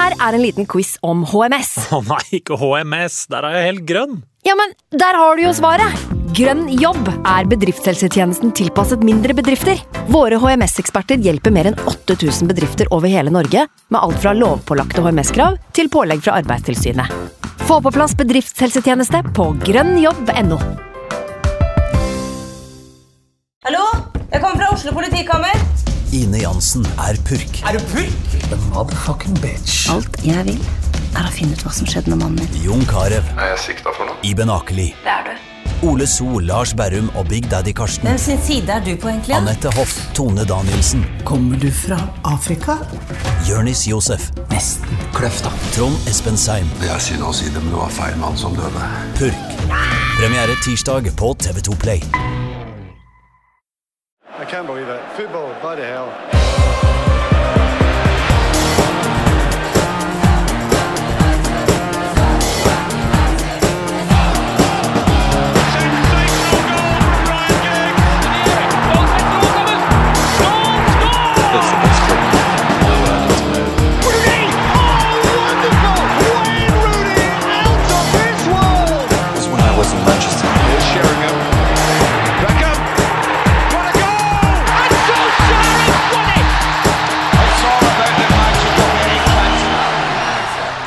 Her en liten quiz om HMS. Nei, ikke HMS, der jeg helt grønn. Ja, men der har du jo svaret. Grønn jobb bedriftshelsetjenesten tilpasset mindre bedrifter. Våre HMS-eksperter hjelper mer enn 8000 bedrifter over hele Norge, med alt fra lovpålagte HMS-krav til pålegg fra Arbeidstilsynet. Få på plass bedriftshelsetjeneste på grønnjobb.no. Hallo? Jeg kommer fra Oslo politikammer. Ine Jansen purk. Du purk? The motherfucking bitch. Alt jeg vil å finne ut hva som skjedde med mannen min. Jon Carew. Jeg sikta for noe? Iben Akeli. Det du. Ole So, Lars Berrum og Big Daddy Karsten. Hvem sin side du på egentlig? Annette Hoff, Tone Danielsen. Kommer du fra Afrika? Jørnis Josef. Nesten kløfta. Trond Espen Seim. Jeg sier noe å si det, men det var feil mann som døde. Purk. Premiere tirsdag på TV2 Play. I can't believe it. Football, bloody hell.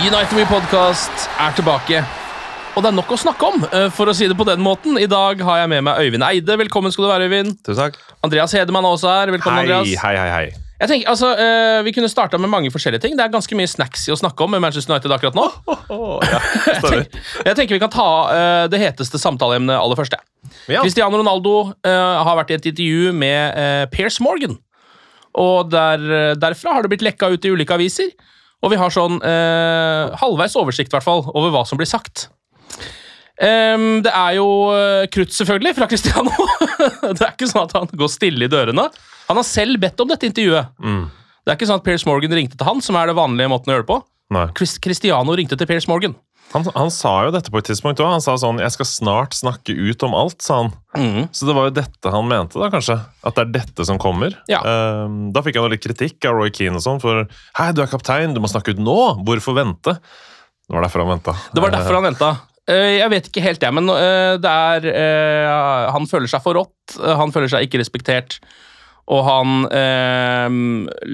United We Podcast tilbake, og det nok å snakke om, for å si det på den måten. I dag har jeg med meg Øyvind Eide. Velkommen skal du være, Øyvind. Tusen takk. Andreas Hedemann er også her. Velkommen, Andreas. Hei. Jeg tenker, vi kunne startet med mange forskjellige ting. Det ganske mye snacks i å snakke om med Manchester United akkurat nå. Jeg tenker vi kan ta det heteste samtaleemnet aller første. Ja. Cristiano Ronaldo har vært i et intervju med Piers Morgan, og derfra har det blitt lekket ut i ulike aviser. Og vi har sånn halvveis oversikt, i hvert fall, over hva som blir sagt. Det jo krutt, selvfølgelig, fra Cristiano. Det ikke sånn at han går stille i dørene. Han har selv bedt om dette intervjuet. Det ikke sånn at Piers Morgan ringte til han, som det vanlige måten å gjøre det på. Nei. Cristiano ringte til Piers Morgan. Han sa jo dette på et tidspunkt også. Han sa sånn, jeg skal snart snakke ut om alt, sa han. Så det var jo dette han mente da, kanskje. At det dette som kommer. Ja. Da fikk han litt kritikk av Roy Keane og sånn, for hei, du kaptein, du må snakke ut nå. Hvorfor vente? Det var derfor han ventet. Det var derfor han ventet. Jeg vet ikke helt det, men han føler seg for rått, han føler seg ikke respektert, og han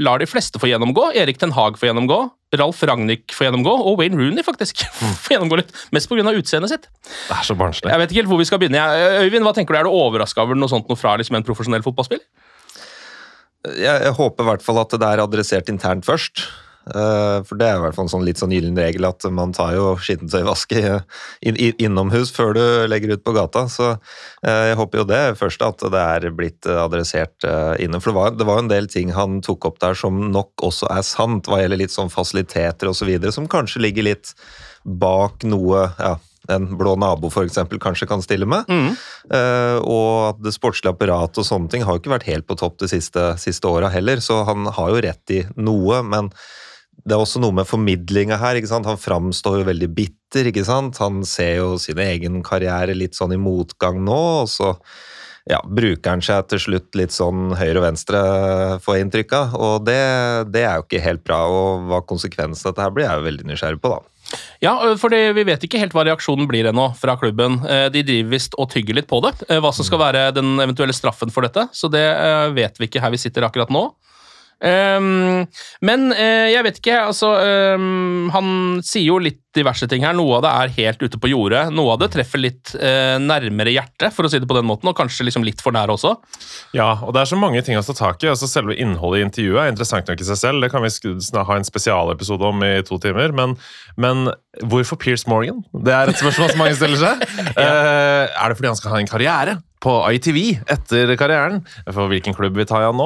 lar de fleste få gjennomgå. Erik Ten Hag få gjennomgå, Ralf Rangnick få gjennomgå, og Wayne Rooney faktisk få gjennomgå litt, mest på grunn av utseendet sitt. Det så barnslig. Jeg vet ikke helt hvor vi skal begynne. Øyvind, hva tenker du? Du overrasket over noe sånt noe fra liksom, en profesjonell fotballspiller? Jeg håper i hvert fall at det adressert internt først. For det i hvert fall en sånn litt sånn gyllen regel at man tar jo skittentøyvaske innomhus før du legger ut på gata, så jeg håper jo det først at det blitt adressert innom, for det var en del ting han tok opp der som nok også sant, hva gjelder litt sånn fasiliteter og så videre, som kanskje ligger litt bak noe, en blå nabo for eksempel kanskje kan stille med, og at det sportslige apparatet og sånne ting har jo ikke vært helt på topp de siste årene heller, så han har jo rett i noe, men det også noe med formidlinga her, ikke sant? Han framstår jo veldig bitter, ikke sant? Han ser jo sin egen karriere litt sånn i motgang nå, og så bruker han seg til slutt litt sånn høyre og venstre for inntrykka, og det jo ikke helt bra, og hva konsekvensen av dette her blir, jeg jo veldig nysgjerrig på da. Ja, for vi vet ikke helt hva reaksjonen blir ennå fra klubben. De driver vist og tygger litt på det, hva som skal være den eventuelle straffen for dette, så det vet vi ikke her vi sitter akkurat nå. Men jeg vet ikke, altså han sier jo litt diverse ting her. Noe av det helt ute på jordet, noe av det treffer litt nærmere hjertet, for å si det på den måten, og kanskje liksom litt for nær også. Ja, og det så mange ting å ta tak i. Altså selve innholdet i intervjuet interessant nok i seg selv. Det kan vi ha en spesialepisode om i 2 timer, men hvorfor Piers Morgan? Det et spørsmål som mange stiller seg. Det fordi han skal ha en karriere på ITV etter karrieren, for hvilken klubb vi tar han nå,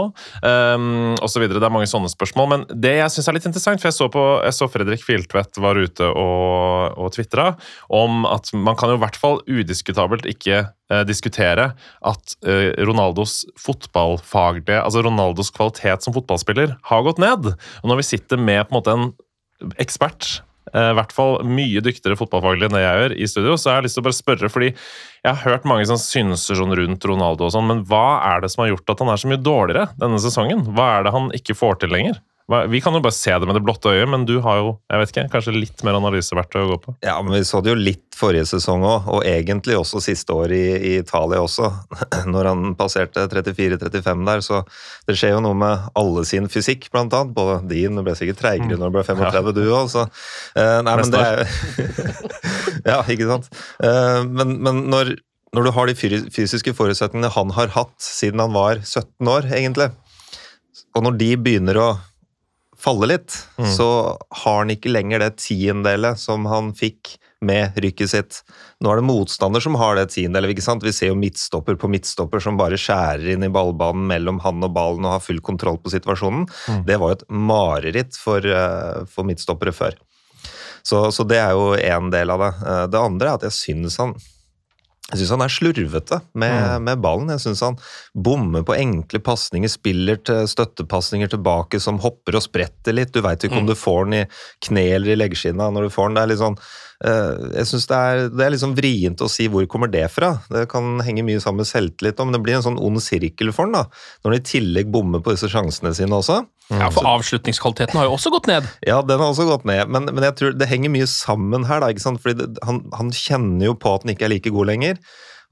og så videre. Det mange sånne spørsmål, men det jeg synes litt interessant, for jeg så Fredrik Filtvedt var ute og twitteret om at man kan jo i hvert fall udiskutabelt ikke diskutere at Ronaldos fotballfaglige, altså Ronaldos kvalitet som fotballspiller har gått ned. Og når vi sitter med på en måte en ekspert, i hvert fall mye dyktigere fotballfaglig enn det jeg gjør i studio, så jeg har lyst til å bare spørre, fordi jeg har hørt mange som synser sånn rundt Ronaldo og sånn, men hva det som har gjort at han så mye dårligere denne sesongen? Hva det han ikke får til lenger? Vi kan jo bare se det med det blotte øyet, men du har jo, jeg vet ikke, kanskje litt mer analyseverktøy å gå på. Ja, men vi så det jo litt forrige sesong også, og egentlig også siste år i Italia også, når han passerte 34-35 der, så det skjer jo noe med alle sin fysikk, blant annet, både din, du ble sikkert treigere når du ble 35 du også, nei, men det er ja, ikke sant? Men når du har de fysiske forutsetningene han har hatt siden han var 17 år, egentlig, og når de begynner å falle litt, så har han ikke lenger det tiendelet som han fikk med rykket sitt. Nå er det motstander som har det tiendelet, ikke sant? Vi ser jo midtstopper på midtstopper som bare skjærer inn i ballbanen mellom han og ballen og har full kontroll på situasjonen. Det var jo et mareritt for midtstoppere før. Så det er jo en del av det. Det andre er at jeg synes han er slurvete med ballen. Jeg synes han bommer på enkle passninger, spiller til støttepassninger tilbake som hopper og spretter litt. Du vet ikke om du får den i kne eller i leggskinna når du får den. Det er litt sånn, jeg synes det er litt sånn vrient å si hvor kommer det fra. Det kan henge mye sammen med selvtillit, men det blir en sånn ond sirkel for den da, når han i tillegg bommer på disse sjansene sine også. Ja, for avslutningskvaliteten har jo også gått ned. Ja, den har også gått ned, men jeg tror det henger mye sammen her da, ikke sant? Fordi han kjenner jo på at han ikke er like god lenger,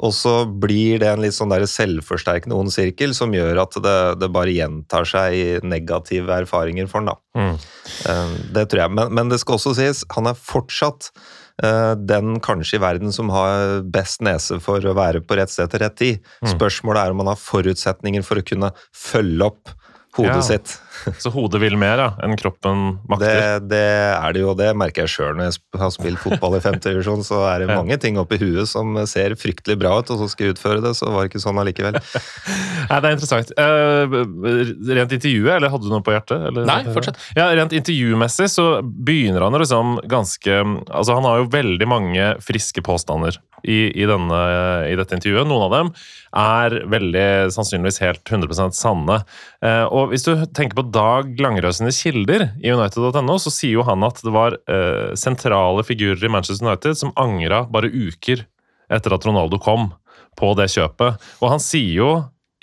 og så blir det en litt sånn der selvforsterkende ond sirkel som gjør at det bare gjentar seg i negative erfaringer for han da. Det tror jeg, men det skal også sies, han er fortsatt den kanskje i verden som har best nese for å være på rett sted til rett tid. Spørsmålet er om han har forutsetninger for å kunne følge opp hodet sitt. Så hodet vil mer enn kroppen makter? Det er det jo, det merker jeg selv når jeg har spilt fotball i 5. divisjon, så er det mange ting oppi huet som ser fryktelig bra ut, og så skal jeg utføre det, så var det ikke sånn allikevel. Nei, det er interessant. Rent intervjuet, eller hadde du noe på hjertet? Eller? Nei, fortsett. Ja, rent intervjumessig så begynner han liksom ganske, altså han har jo veldig mange friske påstander i dette intervjuet. Noen av dem er veldig sannsynligvis helt 100% sanne. Og hvis du tenker på Dag Langerød sine kilder i United.no, så sier jo han at det var sentrale figurer i Manchester United som angret bare uker etter at Ronaldo kom på det kjøpet. Og han sier jo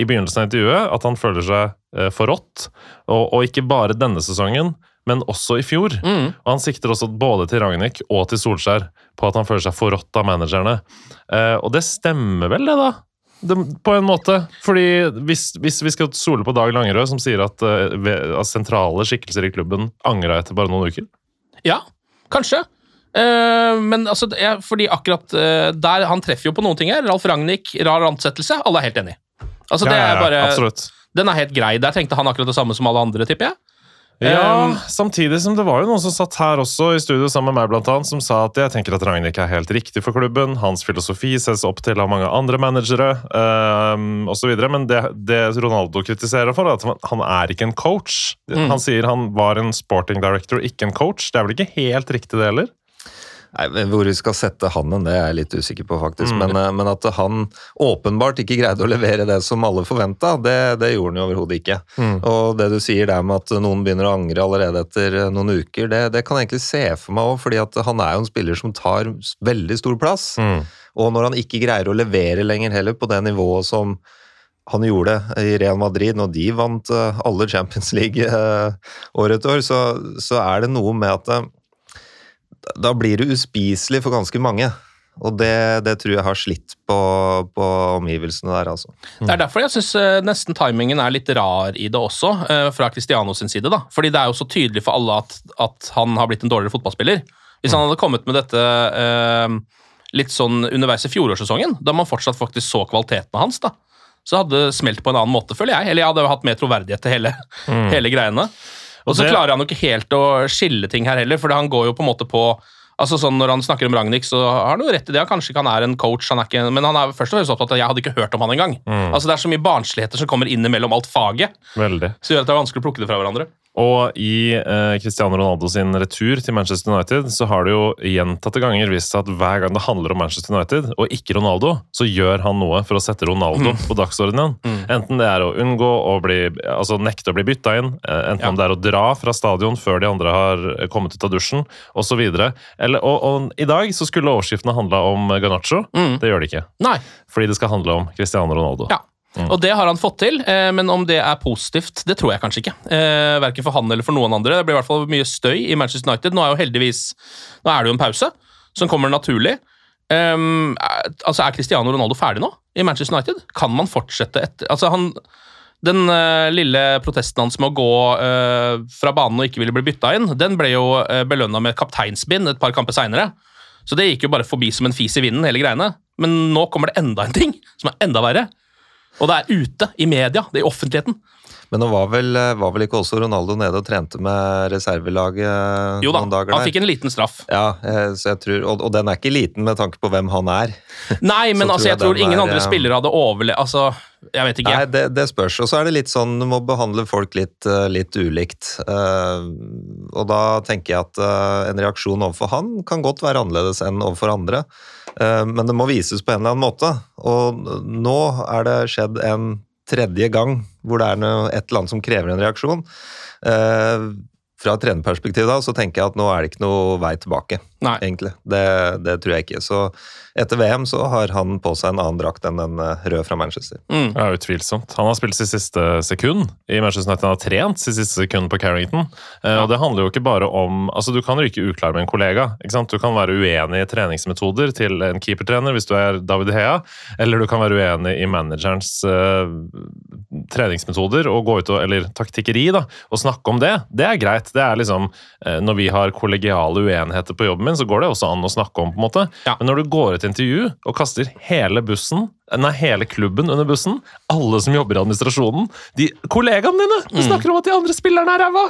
i begynnelsen av intervjuet at han føler seg forrådt, og ikke bare denne sesongen, men også i fjor. Og han sikter også både til Rangnick og til Solskjær på at han føler seg forrådt av managerne. Og det stemmer vel det da? På en måte, fordi hvis vi skal stole på Dag Langerød som sier at sentrale skikkelser i klubben angrer etter bare noen uker? Ja, kanskje. Men altså, fordi akkurat der han treffer jo på noen ting her. Ralf Rangnick, rar ansettelse, alle er helt enige. Altså, det er bare, absolutt. Den er helt grei. Der tenkte han akkurat det samme som alle andre, tipper jeg. Ja, samtidig som det var jo noen som satt her også i studio sammen med meg blant annet, som sa at jeg tenker at Rangnick er helt riktig for klubben, hans filosofi ses opp til av mange andre managere, og så videre, men det Ronaldo kritiserer for er at han er ikke en coach. Han sier han var en sporting director, ikke en coach. Det er vel ikke helt riktig det heller? Nei, hvor vi skal sette han det er jeg litt usikker på faktisk, men at han åpenbart ikke greide å levere det som alle forventet, det gjorde han jo overhodet ikke. Og det du sier der med at noen begynner å angre allerede etter noen uker, det kan jeg egentlig se for meg også, fordi at han er jo en spiller som tar veldig stor plass, og når han ikke greier å levere lenger heller på det nivået som han gjorde i Real Madrid når de vant alle Champions League år etter år, så er det noe med at da blir det uspiselig for ganske mange, og det tror jeg har slitt på omgivelsene der, altså. Det er derfor jeg synes nesten timingen er litt rar i det også, fra Cristiano sin side da, fordi det er jo så tydelig for alle at han har blitt en dårligere fotballspiller. Hvis han hadde kommet med dette litt sånn underveis i fjorårssesongen, da man fortsatt faktisk så kvaliteten hans da, så hadde det smelt på en annen måte, føler jeg, eller jeg hadde hatt mer troverdighet til hele greiene. Og så klarer han jo ikke helt å skille ting her heller, for han går jo på en måte på, altså sånn når han snakker om Rangnick, så har han jo rett i det, kanskje ikke han er en coach, men han er først og fremst opptatt av at jeg hadde ikke hørt om han engang. Altså det er så mye barnsligheter som kommer inn mellom alt faget, Veldig. Så gjør at det er vanskelig å plukke det fra hverandre. Og i Cristiano Ronaldo sin retur til Manchester United så har det jo gjentatte ganger vist seg at hver gang det handler om Manchester United og ikke Ronaldo, så gjør han noe for å sette Ronaldo på dagsordenen. Enten det er å unngå å nekte å bli bytta inn, enten om det er å dra fra stadion før de andre har kommet ut av dusjen, og så videre. Og i dag så skulle overskriftene handle om Garnacho. Det gjør det ikke. Nei. Fordi det skal handle om Cristiano Ronaldo. Ja. Og det har han fått til, men om det er positivt, det tror jeg kanskje ikke. Hverken for han eller for noen andre. Det blir i hvert fall mye støy i Manchester United. Nå er det jo en pause som kommer naturlig. Altså, er Cristiano Ronaldo ferdig nå i Manchester United? Kan man fortsette etter? Altså, den lille protesten hans med å gå fra banen og ikke ville bli bytta inn, den ble jo belønnet med kapteinsbind et par kamper senere. Så det gikk jo bare forbi som en fis i vinden, hele greiene. Men nå kommer det enda en ting som er enda verre. Og det er ute i media, det er i offentligheten. Men nå var vel ikke også Ronaldo nede og trente med reservelaget jo da, noen dager der? Han fikk en liten straff. Ja, så jeg tror, og den er ikke liten med tanke på hvem han er. Nei, men altså, jeg tror ingen andre spillere hadde overlevd. Altså, jeg vet ikke. Nei, det spørs. Og så er det litt sånn, du må behandle folk litt ulikt. Og da tenker jeg at en reaksjon overfor han kan godt være annerledes enn overfor andre. Men det må vises på en eller annen måte. Og nå er det skjedd en tredje gang hvor det er et eller annet som krever en reaksjon. Fra et trenerperspektiv da, så tenker jeg at nå er det ikke noe vei tilbake, egentlig. Det tror jeg ikke. Så etter VM så har han på seg en annen drakt enn den røde fra Manchester. Ja, utvilsomt. Han har spilt sitt siste sekund i Manchester United. Han har trent sitt siste sekund på Carrington. Og det handler jo ikke bare om... Altså, du kan ryke uklar med en kollega, ikke sant? Du kan være uenig i treningsmetoder til en keepertrener hvis du er David Hea, eller du kan være uenig i managerens treningsmetoder og gå ut eller taktikkeri da, og snakke om det. Det er greit. Det er liksom, når vi har kollegiale uenigheter på jobben min, så går det også an å snakke om på en måte. Ja. Men når du går et intervju og kaster hele klubben under bussen, alle som jobber i administrasjonen, kollegaene dine, du snakker om at de andre spillerne er ræva,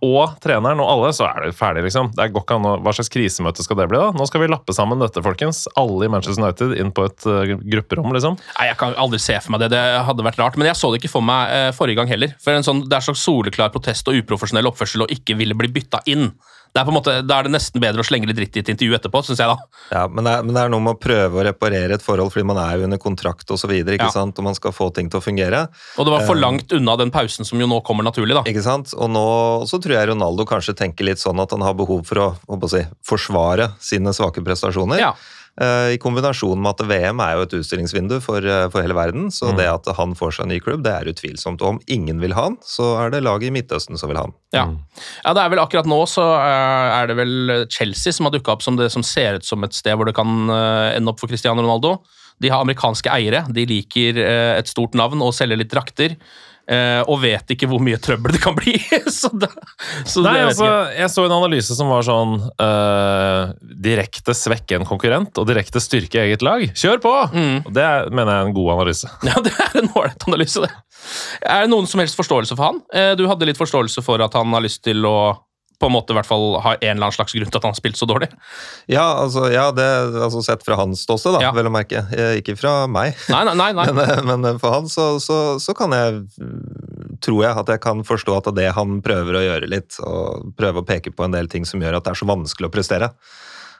og treneren og alle, så er det ferdig liksom. Det går ikke an hva slags krisemøte skal det bli da? Nå skal vi lappe sammen dette, folkens. Alle i Manchester United inn på et grupperom, liksom. Nei, jeg kan aldri se for meg det. Det hadde vært rart, men jeg så det ikke for meg forrige gang heller. For det er slags soleklar protest og uprofesjonell oppførsel og ikke ville bli bytta inn. Det er på en måte, da er det nesten bedre å slenge litt dritt i et intervju etterpå, synes jeg da. Ja, men det er noe med å prøve å reparere et forhold, fordi man er jo under kontrakt og så videre, ikke sant? Og man skal få ting til å fungere. Og det var for langt unna den pausen som jo nå kommer naturlig da. Ikke sant? Og nå så tror jeg Ronaldo kanskje tenker litt sånn at han har behov for å forsvare sine svake prestasjoner. Ja. I kombinasjon med at VM er jo et utstillingsvindu for hele verden, så det at han får seg en ny klubb, det er utvilsomt. Og om ingen vil ha han, så er det laget i Midtøsten som vil ha han. Ja, det er vel akkurat nå så er det vel Chelsea som har dukket opp som det som ser ut som et sted hvor det kan ende opp for Cristiano Ronaldo. De har amerikanske eiere, de liker et stort navn og selger litt drakter. Og vet ikke hvor mye trøbbel det kan bli. jeg så en analyse som var sånn direkte svekke en konkurrent og direkte styrke eget lag. Kjør på! Og det mener jeg er en god analyse. Ja, det er en ålreit analyse det. Er det noen som helst forståelse for han? Du hadde litt forståelse for at han har lyst til å på en måte i hvert fall har en eller annen slags grunn til at han har spilt så dårlig. Ja, det sett fra hans ståsted da, vel å merke. Ikke fra meg. Nei. Men for han så kan tror jeg at jeg kan forstå at det han prøver å gjøre litt, og prøve å peke på en del ting som gjør at det er så vanskelig å prestere.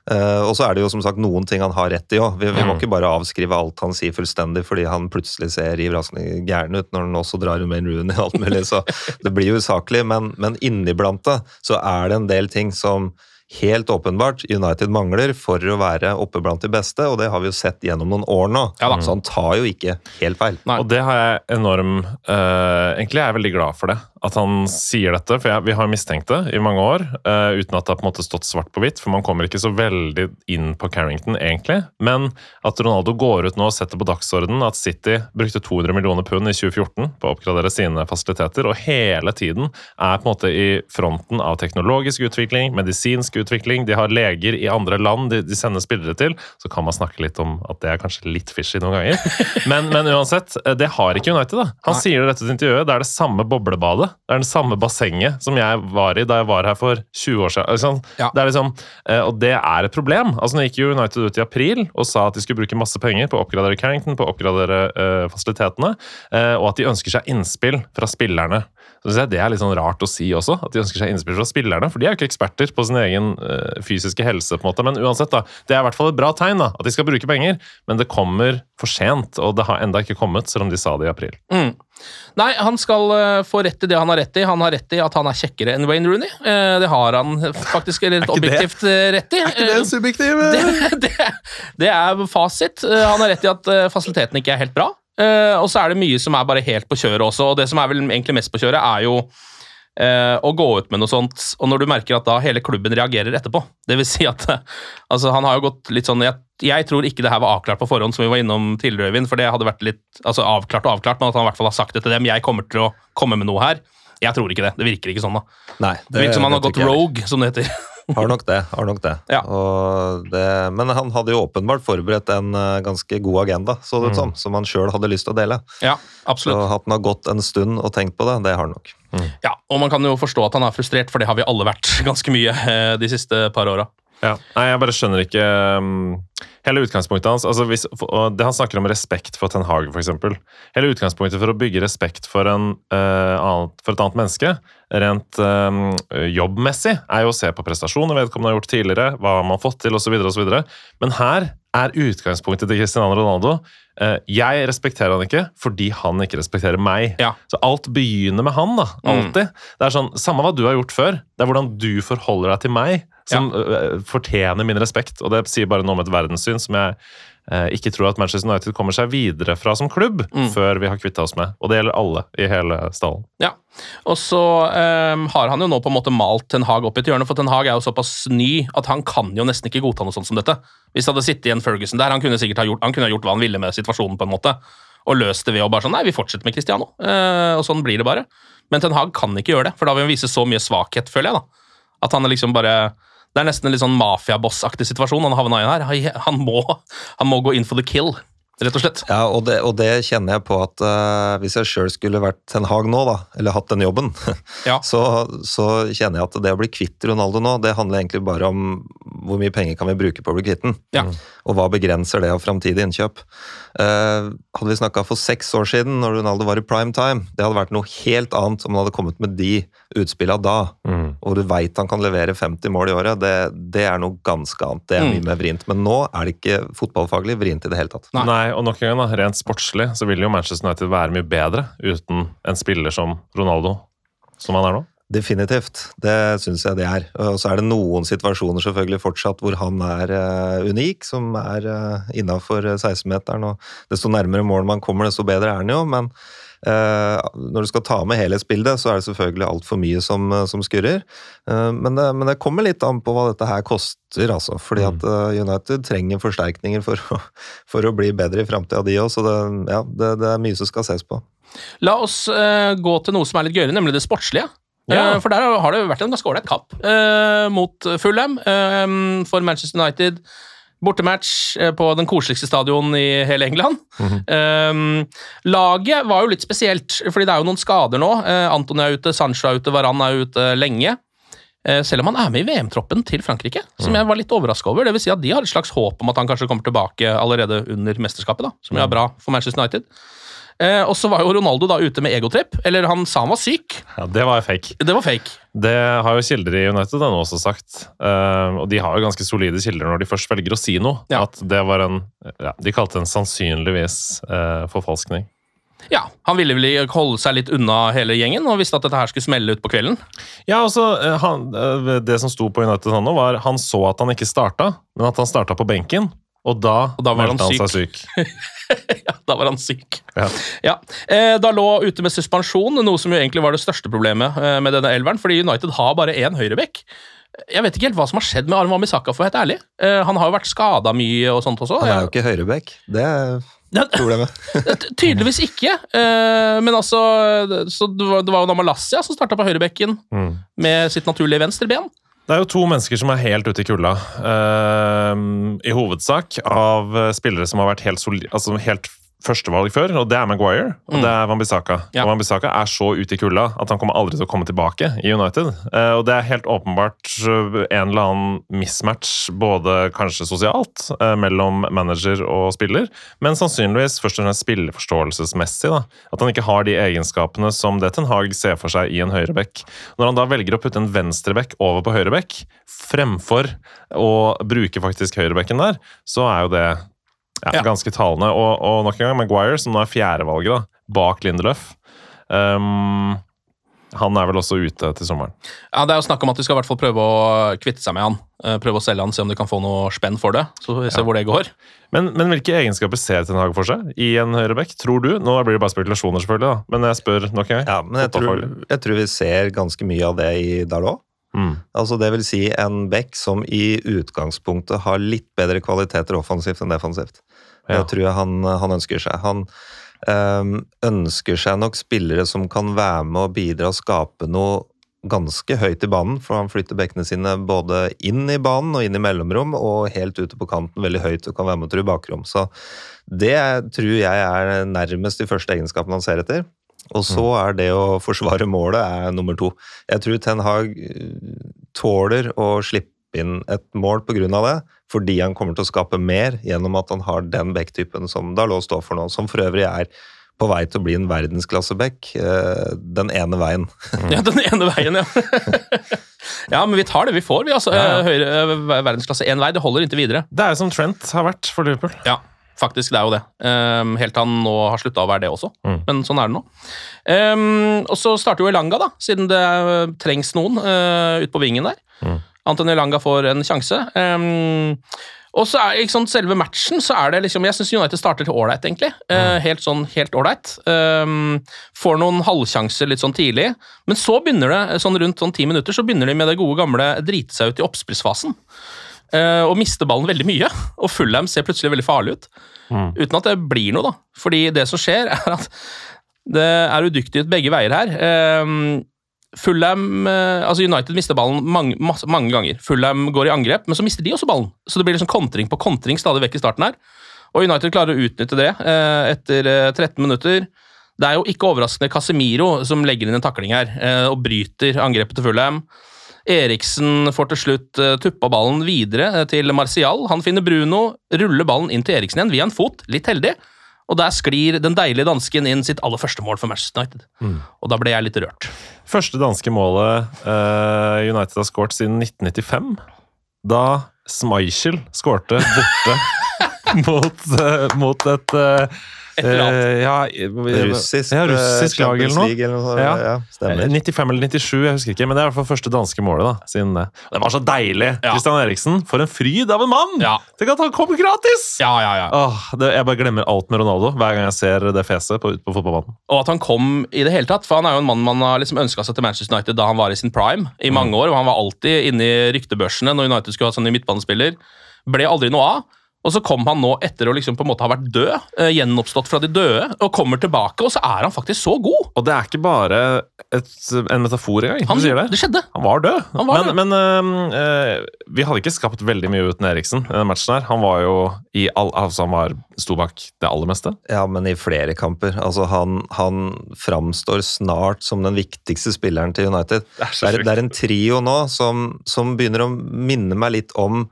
Og så er det jo som sagt noen ting han har rett i også. Vi må ikke bare avskrive alt han sier fullstendig fordi han plutselig ser ivraskende gæren ut når han også drar med en Rooney og alt mulig, så det blir jo usaklig, men inniblant det så er det en del ting som helt åpenbart United mangler for å være oppe blant de beste, og det har vi jo sett gjennom noen år nå, så han tar jo ikke helt feil. Nei. Og det har jeg egentlig er jeg veldig glad for det, at han sier dette, for vi har mistenkt det i mange år, uten at det har på en måte stått svart på hvitt, for man kommer ikke så veldig inn på Carrington egentlig, men at Ronaldo går ut nå og setter på dagsordenen at City brukte 200 millioner pund i 2014 på å oppgradere sine fasiliteter, og hele tiden er på en måte i fronten av teknologisk utvikling, medisinsk utvikling, de har leger i andre land de sender spillere til, så kan man snakke litt om at det er kanskje litt fishy noen ganger, men uansett, det har ikke United da. Han sier det rett ut i intervjuet, det er det samme boblebadet, det er den samme bassenget som jeg var i da jeg var her for 20 år siden. Det er liksom, og det er et problem. Altså, nå gikk jo United ut i april og sa at de skulle bruke masse penger på å oppgradere Carrington, på å oppgradere fasilitetene, og at de ønsker seg innspill fra spillerne. Så det er litt sånn rart å si også, at de ønsker seg innspill fra spillerne, for de er jo ikke eksperter på sin egen fysiske helse, på en måte. Men uansett da, det er i hvert fall et bra tegn da, at de skal bruke penger, men det kommer for sent, og det har enda ikke kommet, selv om de sa det i april. Nei, han skal få rett i det han har rett i. Han har rett i at han er kjekkere enn Wayne Rooney. Det har han faktisk litt objektivt rett i. Er ikke det subjektiv? Det er fasit. Han har rett i at fasiliteten ikke er helt bra. og så det mye som bare helt på kjøret også, og det som vel egentlig mest på kjøret jo å gå ut med noe sånt, og når du merker at da hele klubben reagerer etterpå, det vil si at altså, han har jo gått litt sånn, jeg tror ikke det her var avklart på forhånd, som vi var innom tidligere, Øyvind, for det hadde vært litt altså, avklart, men at han I hvert fall har sagt det til dem, jeg kommer til å komme med noe her. Jeg tror ikke det virker ikke sånn da. Nei, det virker som han har gått rogue, som det heter. Har nok det. Ja. Men han hadde jo åpenbart forberedt en ganske god agenda, så det som han selv hadde lyst til å dele. Ja, absolutt. Så at han har gått en stund og tenkt på det har han nok. Ja, og man kan jo forstå at han frustrert, for det har vi alle vært ganske mye de siste par årene. Ja. Nei, jeg bare skjønner ikke hele utgangspunktet hans. Altså, det han snakker om respekt for Ten Hag, for eksempel. Hele utgangspunktet for å bygge respekt for et annet menneske, rent jobbmessig, jo å se på prestasjoner vedkommende har gjort tidligere, hva man har fått til, og så videre. Men her utgangspunktet til Cristiano Ronaldo. Jeg respekterer han ikke, fordi han ikke respekterer meg. Ja. Så alt begynner med han, da. Alltid. Det sånn, samme hva du har gjort før, det hvordan du forholder deg til meg, som fortjener min respekt, og det sier bare noe om et verdenssyn som jeg ikke tror at Manchester United kommer seg videre fra som klubb før vi har kvittet oss med, og det gjelder alle I hele stallen. Ja, og så har han jo nå på en måte malt Ten Hag opp I et hjørne, for Ten Hag jo såpass ny at han kan jo nesten ikke godta noe sånt som dette. Hvis det hadde sittet en Ferguson der, han kunne sikkert ha gjort hva han ville med situasjonen på en måte, og løst det ved å bare sånn, nei, vi fortsetter med Cristiano, og sånn blir det bare. Men Ten Hag kan ikke gjøre det, for da vil han vise så mye svakhet, føler jeg da. At han liksom bare... Det nesten en litt sånn mafia-boss-aktig situasjon han havnet I her. Han må gå in for the kill, rett og slett. Ja, og det kjenner jeg på at hvis jeg selv skulle vært Ten Hag nå da, eller hatt den jobben, så kjenner jeg at det å bli kvitt Ronaldo nå, det handler egentlig bare om hvor mye penger kan vi bruke på å bli kvitt den, og hva begrenser det av fremtidig innkjøp. Hadde vi snakket for 6 år siden, når Ronaldo var I prime time, det hadde vært noe helt annet om han hadde kommet med de utspillene da, og du vet han kan levere 50 mål I året, det noe ganske annet, det mye mer vrient, men nå det ikke fotballfaglig vrient I det hele tatt. Nei, og nok en gang da, rent sportslig, så vil jo Manchester United være mye bedre uten en spiller som Ronaldo, som han nå. Definitivt, det synes jeg det og så det noen situasjoner selvfølgelig fortsatt hvor han unik, som innenfor 16-meteren, og desto nærmere mål man kommer, desto bedre han jo, men når du skal ta med hele spillet, så det selvfølgelig alt for mye som skurrer, men det kommer litt an på hva dette her koster, altså, fordi at United trenger forsterkninger for å bli bedre I fremtiden de også, så det mye som skal ses på. La oss gå til noe som litt gøyere, nemlig det sportslige. For der har det vært en ganske ålreit kamp mot Fulham for Manchester United. Bortematch på den koseligste stadion I hele England. Laget var jo litt spesielt, fordi det jo noen skader nå. Antony ute, Sancho ute, Varane ute lenge. Selv om han med I VM-troppen til Frankrike, som jeg var litt overrasket over. Det vil si at de har et slags håp om at han kanskje kommer tilbake allerede under mesterskapet, da, som jo bra for Manchester United. Og så var jo Ronaldo da ute med egotripp, eller han sa han var syk. Ja, det var fake. Det var fake. Det har jo kilder I United nå også sagt, og de har jo ganske solide kilder når de først velger å si noe, at det var de kalte en sannsynligvis forfalskning. Ja, han ville vel holde seg litt unna hele gjengen, og visste at dette her skulle smelle ut på kvelden. Ja, altså, det som sto på United nå var, han så at han ikke startet, men at han startet på benken, og da meldte han seg syk. Ja, da var han syk. Ja. Da lå ute med suspensjon, noe som jo egentlig var det største problemet med denne elveren, fordi United har bare en høyrebekk. Jeg vet ikke helt hva som har skjedd med Arman Bissaka, for helt ærlig. Han har jo vært skadet mye og sånt også. Han jo ikke høyrebekk, det problemet. Tydeligvis ikke, men altså, så det var jo Malassia som startet på høyrebekken med sitt naturlige venstreben. Det jo 2 mennesker som helt ute I kulda, I hovedsak av spillere som har vært helt førstevalg før, og det Maguire, og det Wan-Bissaka. Og Wan-Bissaka så ute I kulda at han kommer aldri til å komme tilbake I United. Og det helt åpenbart en eller annen mismatch, både kanskje sosialt, mellom manager og spiller, men sannsynligvis først og fremst spilleforståelsesmessig, da. At han ikke har de egenskapene som det Ten Hag ser for seg I en høyrebekk. Når han da velger å putte en venstrebekk over på høyrebekk, fremfor å bruke faktisk høyrebekken der, så jo det ganske talende, og nok en gang Maguire, som nå 4. valget da, bak Lindelöf. Han vel også ute til sommeren. Ja, det jo snakk om at de skal I hvert fall prøve å kvitte seg med han. Prøve å selge han, se om de kan få noe spenn for det. Så vi ser hvor det går. Men hvilke egenskaper ser Ten Hag for seg I en høyrebekk, tror du? Nå blir det bare spekulasjoner selvfølgelig da, men jeg spør nok en gang. Ja, men jeg tror vi ser ganske mye av det I Dalot. Altså det vil si en bekk som I utgangspunktet har litt bedre kvaliteter offensivt enn defensivt. Det tror jeg han ønsker seg. Han ønsker seg nok spillere som kan være med og bidra og skape noe ganske høyt I banen, for han flytter bekkene sine både inn I banen og inn I mellomrom, og helt ute på kanten veldig høyt og kan være med å true bakrom. Så det tror jeg nærmest de første egenskapene han ser etter. Og så det å forsvare målet nummer 2. Jeg tror Ten Hag tåler å slippe inn et mål på grunn av det, fordi han kommer til å skape mer gjennom at han har den bekktypen som Dalot står for nå, som for øvrig på vei til å bli en verdensklassebekk den ene veien. Ja, den ene veien, ja. Ja, men vi tar det vi får, vi altså. Høyre verdensklasse en vei, det holder inntil videre. Det som Trent har vært for Liverpool. Ja. Faktisk, det jo det. Helt han nå har sluttet å være det også. Men sånn det nå. Og så starter jo Elanga da, siden det trengs noen ut på vingen der. Anthony Elanga får en sjanse. Og så ikke sånn, selve matchen, så det liksom, jeg synes United starter til ålreit egentlig. Helt ålreit. Får noen halvsjanser litt sånn tidlig. Men så begynner det, sånn rundt 10 minutter, så begynner de med det gode gamle drite seg ut I oppspillsfasen. Og mister ballen veldig mye, og Fulham ser plutselig veldig farlig ut, uten at det blir noe da, fordi det som skjer at det udyktig ut begge veier her. Fulham, altså United mister ballen mange ganger, Fulham går I angrep, men så mister de også ballen, så det blir liksom kontring på kontring stadig vekk I starten her, og United klarer å utnytte det etter 13 minutter. Det jo ikke overraskende Casemiro som legger inn en takling her, og bryter angrepet til Fulham. Eriksen får til slutt tuppa ballen videre til Martial. Han finner Bruno, ruller ballen inn til Eriksen igjen via en fot, litt heldig. Og der sklir den deilige dansken inn sitt aller første mål for Manchester United. Og da ble jeg litt rørt. Første danske målet United har skåret siden 1995. Da Schmeichel skårte borte mot et russisk lag eller noe. Ja, 95 eller 97, jeg husker ikke, men det I hvert fall første danske målet da, siden det. Det var så deilig. Christian Eriksen, for en fryd av en mann! Tenk at han kommer gratis! Jeg bare glemmer alt med Ronaldo hver gang jeg ser det feset på fotballbanen. Og at han kom I det hele tatt, for han jo en mann man har liksom ønsket seg til Manchester United da han var I sin prime I mange år, og han var alltid inne I ryktebørsene når United skulle ha sånn I midtbanespiller. Ble aldri noe av. Og så kom han nå etter å liksom på en måte ha vært død, gjenoppstått fra de døde, og kommer tilbake, og så han faktisk så god. Og det ikke bare en metafor engang. Det skjedde. Han var død. Men vi hadde ikke skapt veldig mye uten Eriksen I den matchen her. Han var jo han sto bak det aller meste. Ja, men I flere kamper. Altså han framstår snart som den viktigste spilleren til United. Det en trio nå som begynner å minne meg litt om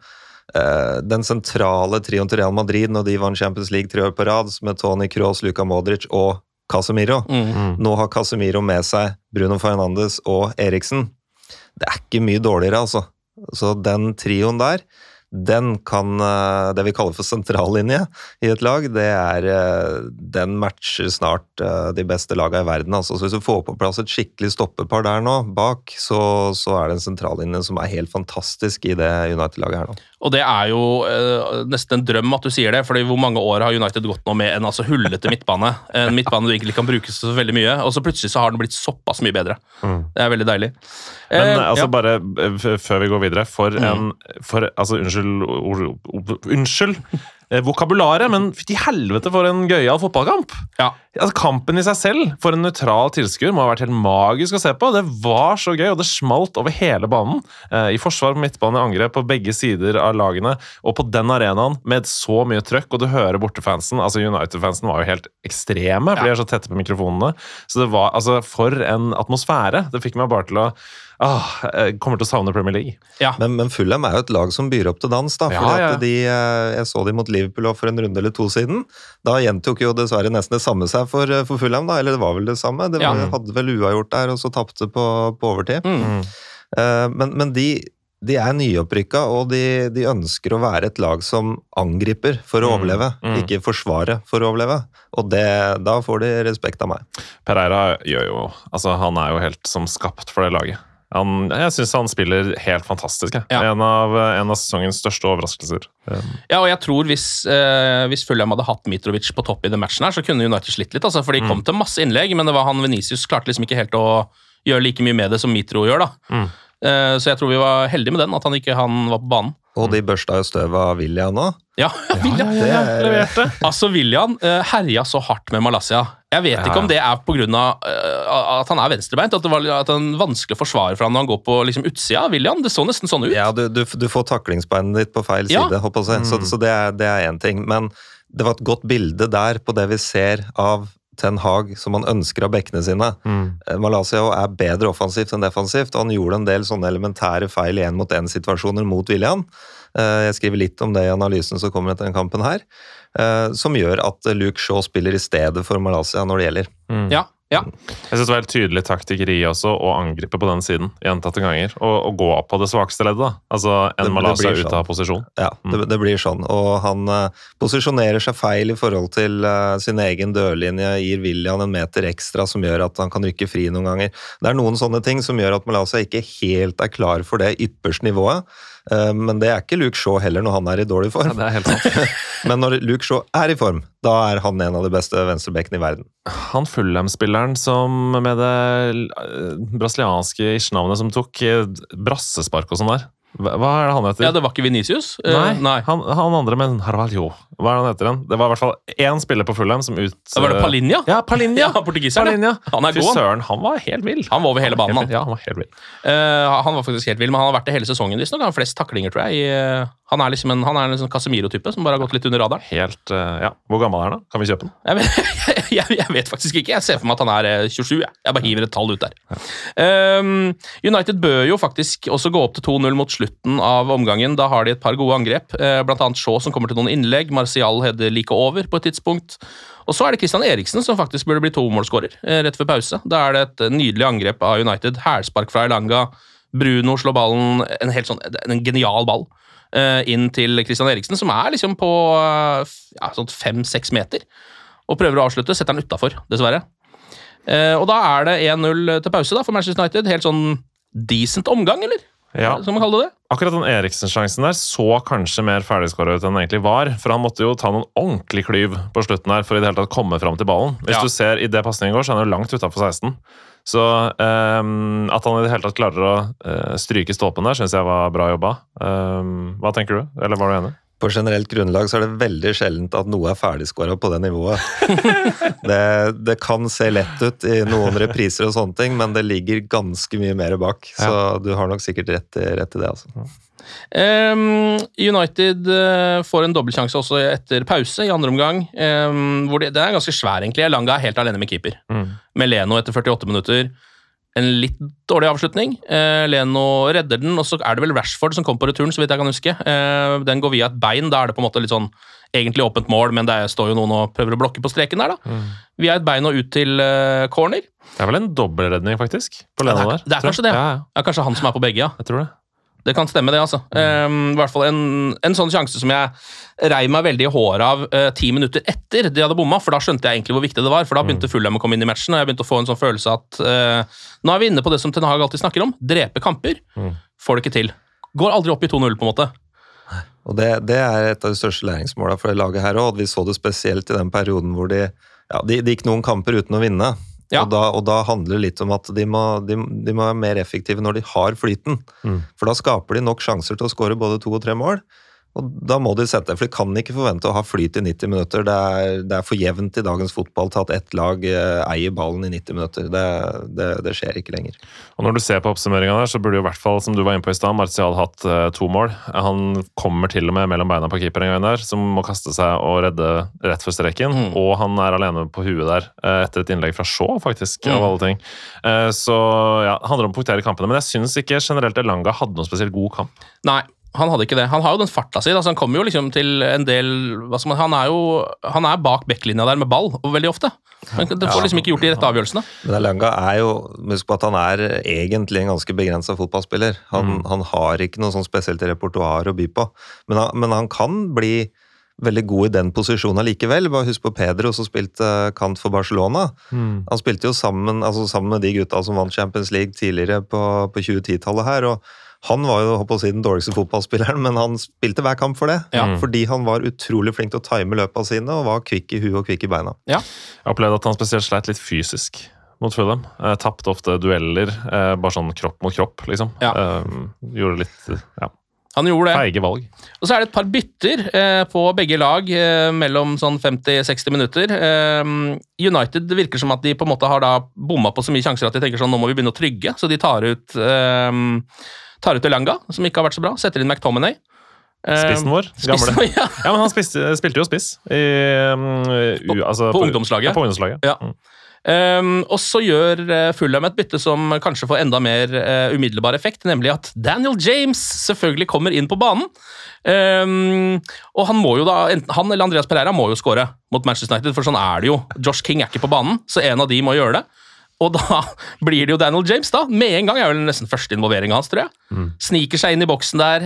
den sentrale trioen til Real Madrid når de vant Champions League 3 år på rad med Toni Kroos, Luka Modric og Casemiro. Nå har Casemiro med seg Bruno Fernandes og Eriksen. Det ikke mye dårligere altså. Så den trioen der, den kan det vi kaller for sentrallinje I et lag, det den matcher snart de beste lagene I verden. Altså, så hvis du får på plass et skikkelig stoppepar der nå, bak, så det en sentrallinje som helt fantastisk I det United-laget her nå. Og det jo nesten en drøm at du sier det, fordi hvor mange år har United gått nå med en hullete midtbane, en midtbane du egentlig kan bruke så veldig mye, og så plutselig så har den blitt såpass mye bedre. Det veldig deilig. Men altså bare, før vi går videre, unnskyld, vokabularet, men til helvete for en gøyal fotballkamp. Altså, kampen I seg selv, for en nøytral tilskuer, må ha vært helt magisk å se på. Det var så gøy, og det smalt over hele banen. I forsvar, midtbane, angrep på begge sider av lagene, og på den arenaen med så mye trøkk, og du hører bortefansen, altså United-fansen var jo helt ekstreme, for de så tette på mikrofonene. Så det var, altså, for en atmosfære. Det fikk meg bare til å jeg kommer til å savne Premier League. Men Fulham jo et lag som byr opp til dans da, for jeg så de mot Liverpool for en runde eller 2 siden. Da gjentok jo dessverre nesten det samme seg for Fulham da, eller det var vel det samme. Det hadde vel uavgjort der, og så tappte på overtid. Men de nyopprykka, og de ønsker å være et lag som angriper for å overleve, ikke forsvare for å overleve. Og da får de respekt av meg. Pereira gjør jo, altså han jo helt som skapt for det laget. Jeg synes han spiller helt fantastisk. Ja. En av sesongens største overraskelser. Ja, og jeg tror hvis Fulham hadde hatt Mitrovic på topp i den matchen her, så kunne United slitt litt, altså, for de kom til masse innlegg, men det var han Vinicius klarte liksom ikke helt å gjøre like mye med det som Mitro gjør da. Så jeg tror vi var heldige med den, at han var på banen. Og de børsta jo støv av Willian nå. Ja, Willian leverte. Altså, Willian herja så hardt med Malaysia. Jeg vet ikke om det på grunn av at han venstrebeint, at det er vanskelig å forsvare for han når han går på liksom, utsida av Willian. Det så nesten sånn ut. Ja, du får taklingsbeinet ditt på feil side, håper jeg. Så det en ting. Men det var et godt bilde der på det vi ser av Ten Hag som han ønsker av bekkene sine. Malaysia bedre offensivt enn defensivt, og han gjorde en del sånne elementære feil i 1-mot-1-situasjoner mot Willian. Jeg skriver litt om det i analysen som kommer etter den kampen her, som gjør at Luke Shaw spiller i stedet for Malaysia når det gjelder. Ja. Jeg synes det var helt tydelig taktikkeri også å angripe på den siden gjentatte ganger, og gå opp på det svakeste leddet da. Altså en Malaysia ut av posisjon. Ja, det blir sånn, og han posisjonerer seg feil i forhold til sin egen dørlinje, gir Willian en meter ekstra som gjør at han kan rykke fri noen ganger. Det noen sånne ting som gjør at Malaysia ikke helt klar for det ypperste nivået, men det ikke Luke Shaw heller når han i dårlig form. Ja, det helt sant. Men når Luke Shaw i form, da han en av de beste venstrebekkene i verden. Han Fulham-spilleren som med det brasilianske ish-navnet som tok brassespark og sånn der. Hva det han heter? Ja, det var ikke Vinicius? Nei. Han andre, men Carvalho. Hva han heter den? Det var i hvert fall én spiller på Fulham som Var det Palinha? Ja, Palinha. Ja, portugiseren. Han god. Fysøren, han var helt vill. Han var over hele banen, han. Ja, han var helt vill. Han var faktisk helt vill, men han har vært det hele sesongen. Han har flest taklinger, tror jeg. Han liksom en sånn Casemiro-type som bare har gått litt under radaren. Helt, ja. Hvor gammel han da? Kan vi kjøpe den? Jeg vet faktisk ikke. Jeg ser for meg at han 27. Jeg bare hiver et tall ut der. United bør jo faktisk også gå opp til 2-0 mot slutten av omgangen. Da har de et par gode angrep. Blant annet Shaw som kommer til noen innlegg. Martial header like over på et tidspunkt. Og så det Christian Eriksen som faktisk burde bli 2-målsskårer rett før pause. Da det et nydelig angrep av United. Hælspark fra Elanga. Bruno slår ballen, en genial ball, inn til Christian Eriksen, som liksom på sånn 5-6 meter. Og prøver å avslutte, setter han utenfor, dessverre. Og da det 1-0 til pause da, for Manchester United. Helt sånn decent omgang, eller? Ja. Som man kaller det. Akkurat den Eriksen-sjansen der så kanskje mer ferdigskåret ut enn den egentlig var, for han måtte jo ta noen ordentlig klyv på slutten her for i det hele tatt komme fram til ballen. Hvis du ser i det passningen går, så han jo langt utenfor 16. Så at han i det hele tatt klarer å stryke ståpen der, synes jeg var bra jobba. Hva tenker du? Eller var du enig? På generelt grunnlag så det veldig sjeldent at noe ferdigskåret på det nivået. det kan se lett ut i noen repriser og sånne ting, men det ligger ganske mye mer bak. Så du har nok sikkert rett i det, altså. United får en dobbeltsjanse også etter pause i andre omgang, hvor det ganske svær egentlig. Elanga helt alene med keeper. Med Leno etter 48 minutter. En litt dårlig avslutning. Leno redder den, og så det vel Rashford som kom på returen, så vidt jeg kan huske. Den går via et bein, da det på en måte litt sånn egentlig åpent mål, men det står jo noen og prøver å blokke på streken der da. Via et bein og ut til corner. Det vel en dobbeltredning faktisk, på Leno der. Det kanskje det. Ja, kanskje han som på begge, ja. Jeg tror det. Det kan stemme det, altså. I hvert fall en sånn sjanse som jeg rei meg veldig i håret av 10 minutter etter de hadde bomma, for da skjønte jeg egentlig hvor viktig det var, for da begynte Fulham å komme inn i matchen, og jeg begynte å få en sånn følelse at nå vi inne på det som Ten Hag alltid snakker om, drepe kamper, får det ikke til. Går aldri opp i 2-0 på en måte. Og det et av de største læringsmålene for det laget her også, og vi så det spesielt i den perioden hvor de gikk noen kamper uten å vinne. Ja. Og da handler det litt om at de må være mer effektive når de har flyten. For da skaper de nok sjanser til å skåre både 2 og 3 mål. Og da må de sette, for de kan ikke forvente å ha flyt i 90 minutter. Det for jevnt i dagens fotball til at ett lag eier ballen i 90 minutter. Det skjer ikke lenger. Og når du ser på oppsummeringen der, så burde jo i hvert fall, som du var inne på i sted, Martial hatt 2 mål. Han kommer til og med mellom beina på keeper en gang der, som må kaste seg og redde rett for streken. Og han alene på huet der, etter et innlegg fra Shaw, faktisk, av alle ting. Så ja, det handler om å punktere kampene, men jeg synes ikke generelt Elanga hadde noen spesielt god kamp. Nei. Han hadde ikke det. Han har jo den farta si, altså han kommer jo liksom til en del, han er bak backlinja der med ball, og veldig ofte. Men det får liksom ikke gjort de rette avgjørelsene. Men Elanga jo, husk på at han egentlig en ganske begrenset fotballspiller. Han har ikke noe sånn spesielt repertoar å by på, men han kan bli veldig god i den posisjonen likevel. Bare husk på Pedro som spilte kant for Barcelona. Han spilte jo sammen med de gutta som vant Champions League tidligere på 2010-tallet her, og han var jo, håper å si, den dårligste fotballspilleren, men han spilte hver kamp for det. Fordi han var utrolig flink til å time løpene sine, og var kvikk i huet og kvikk i beina. Ja. Jeg opplevde at han spesielt sleit litt fysisk mot Fulham. Tappte ofte dueller, bare sånn kropp mot kropp, liksom. Gjorde litt, Han gjorde det. Feige valg. Og så det et par bytter på begge lag mellom sånn 50-60 minutter. United virker som at de på en måte har da bommet på så mye sjanser at de tenker sånn, nå må vi begynne å trygge, så de tar ut Elanga, som ikke har vært så bra, setter inn McTominay. Spissen vår, gamle. Ja, men han spilte jo spiss på ungdomslaget. På ungdomslaget. Ja. Og så gjør Fulham et bytte som kanskje får enda mer umiddelbar effekt, nemlig at Daniel James selvfølgelig kommer inn på banen. Og han må jo da, han eller Andreas Pereira må jo score mot Manchester United, for sånn det jo. Josh King ikke på banen, så en av de må gjøre det. Og da blir det jo Daniel James da, med en gang vel nesten første involvering hans, tror jeg. Sniker seg inn i boksen der,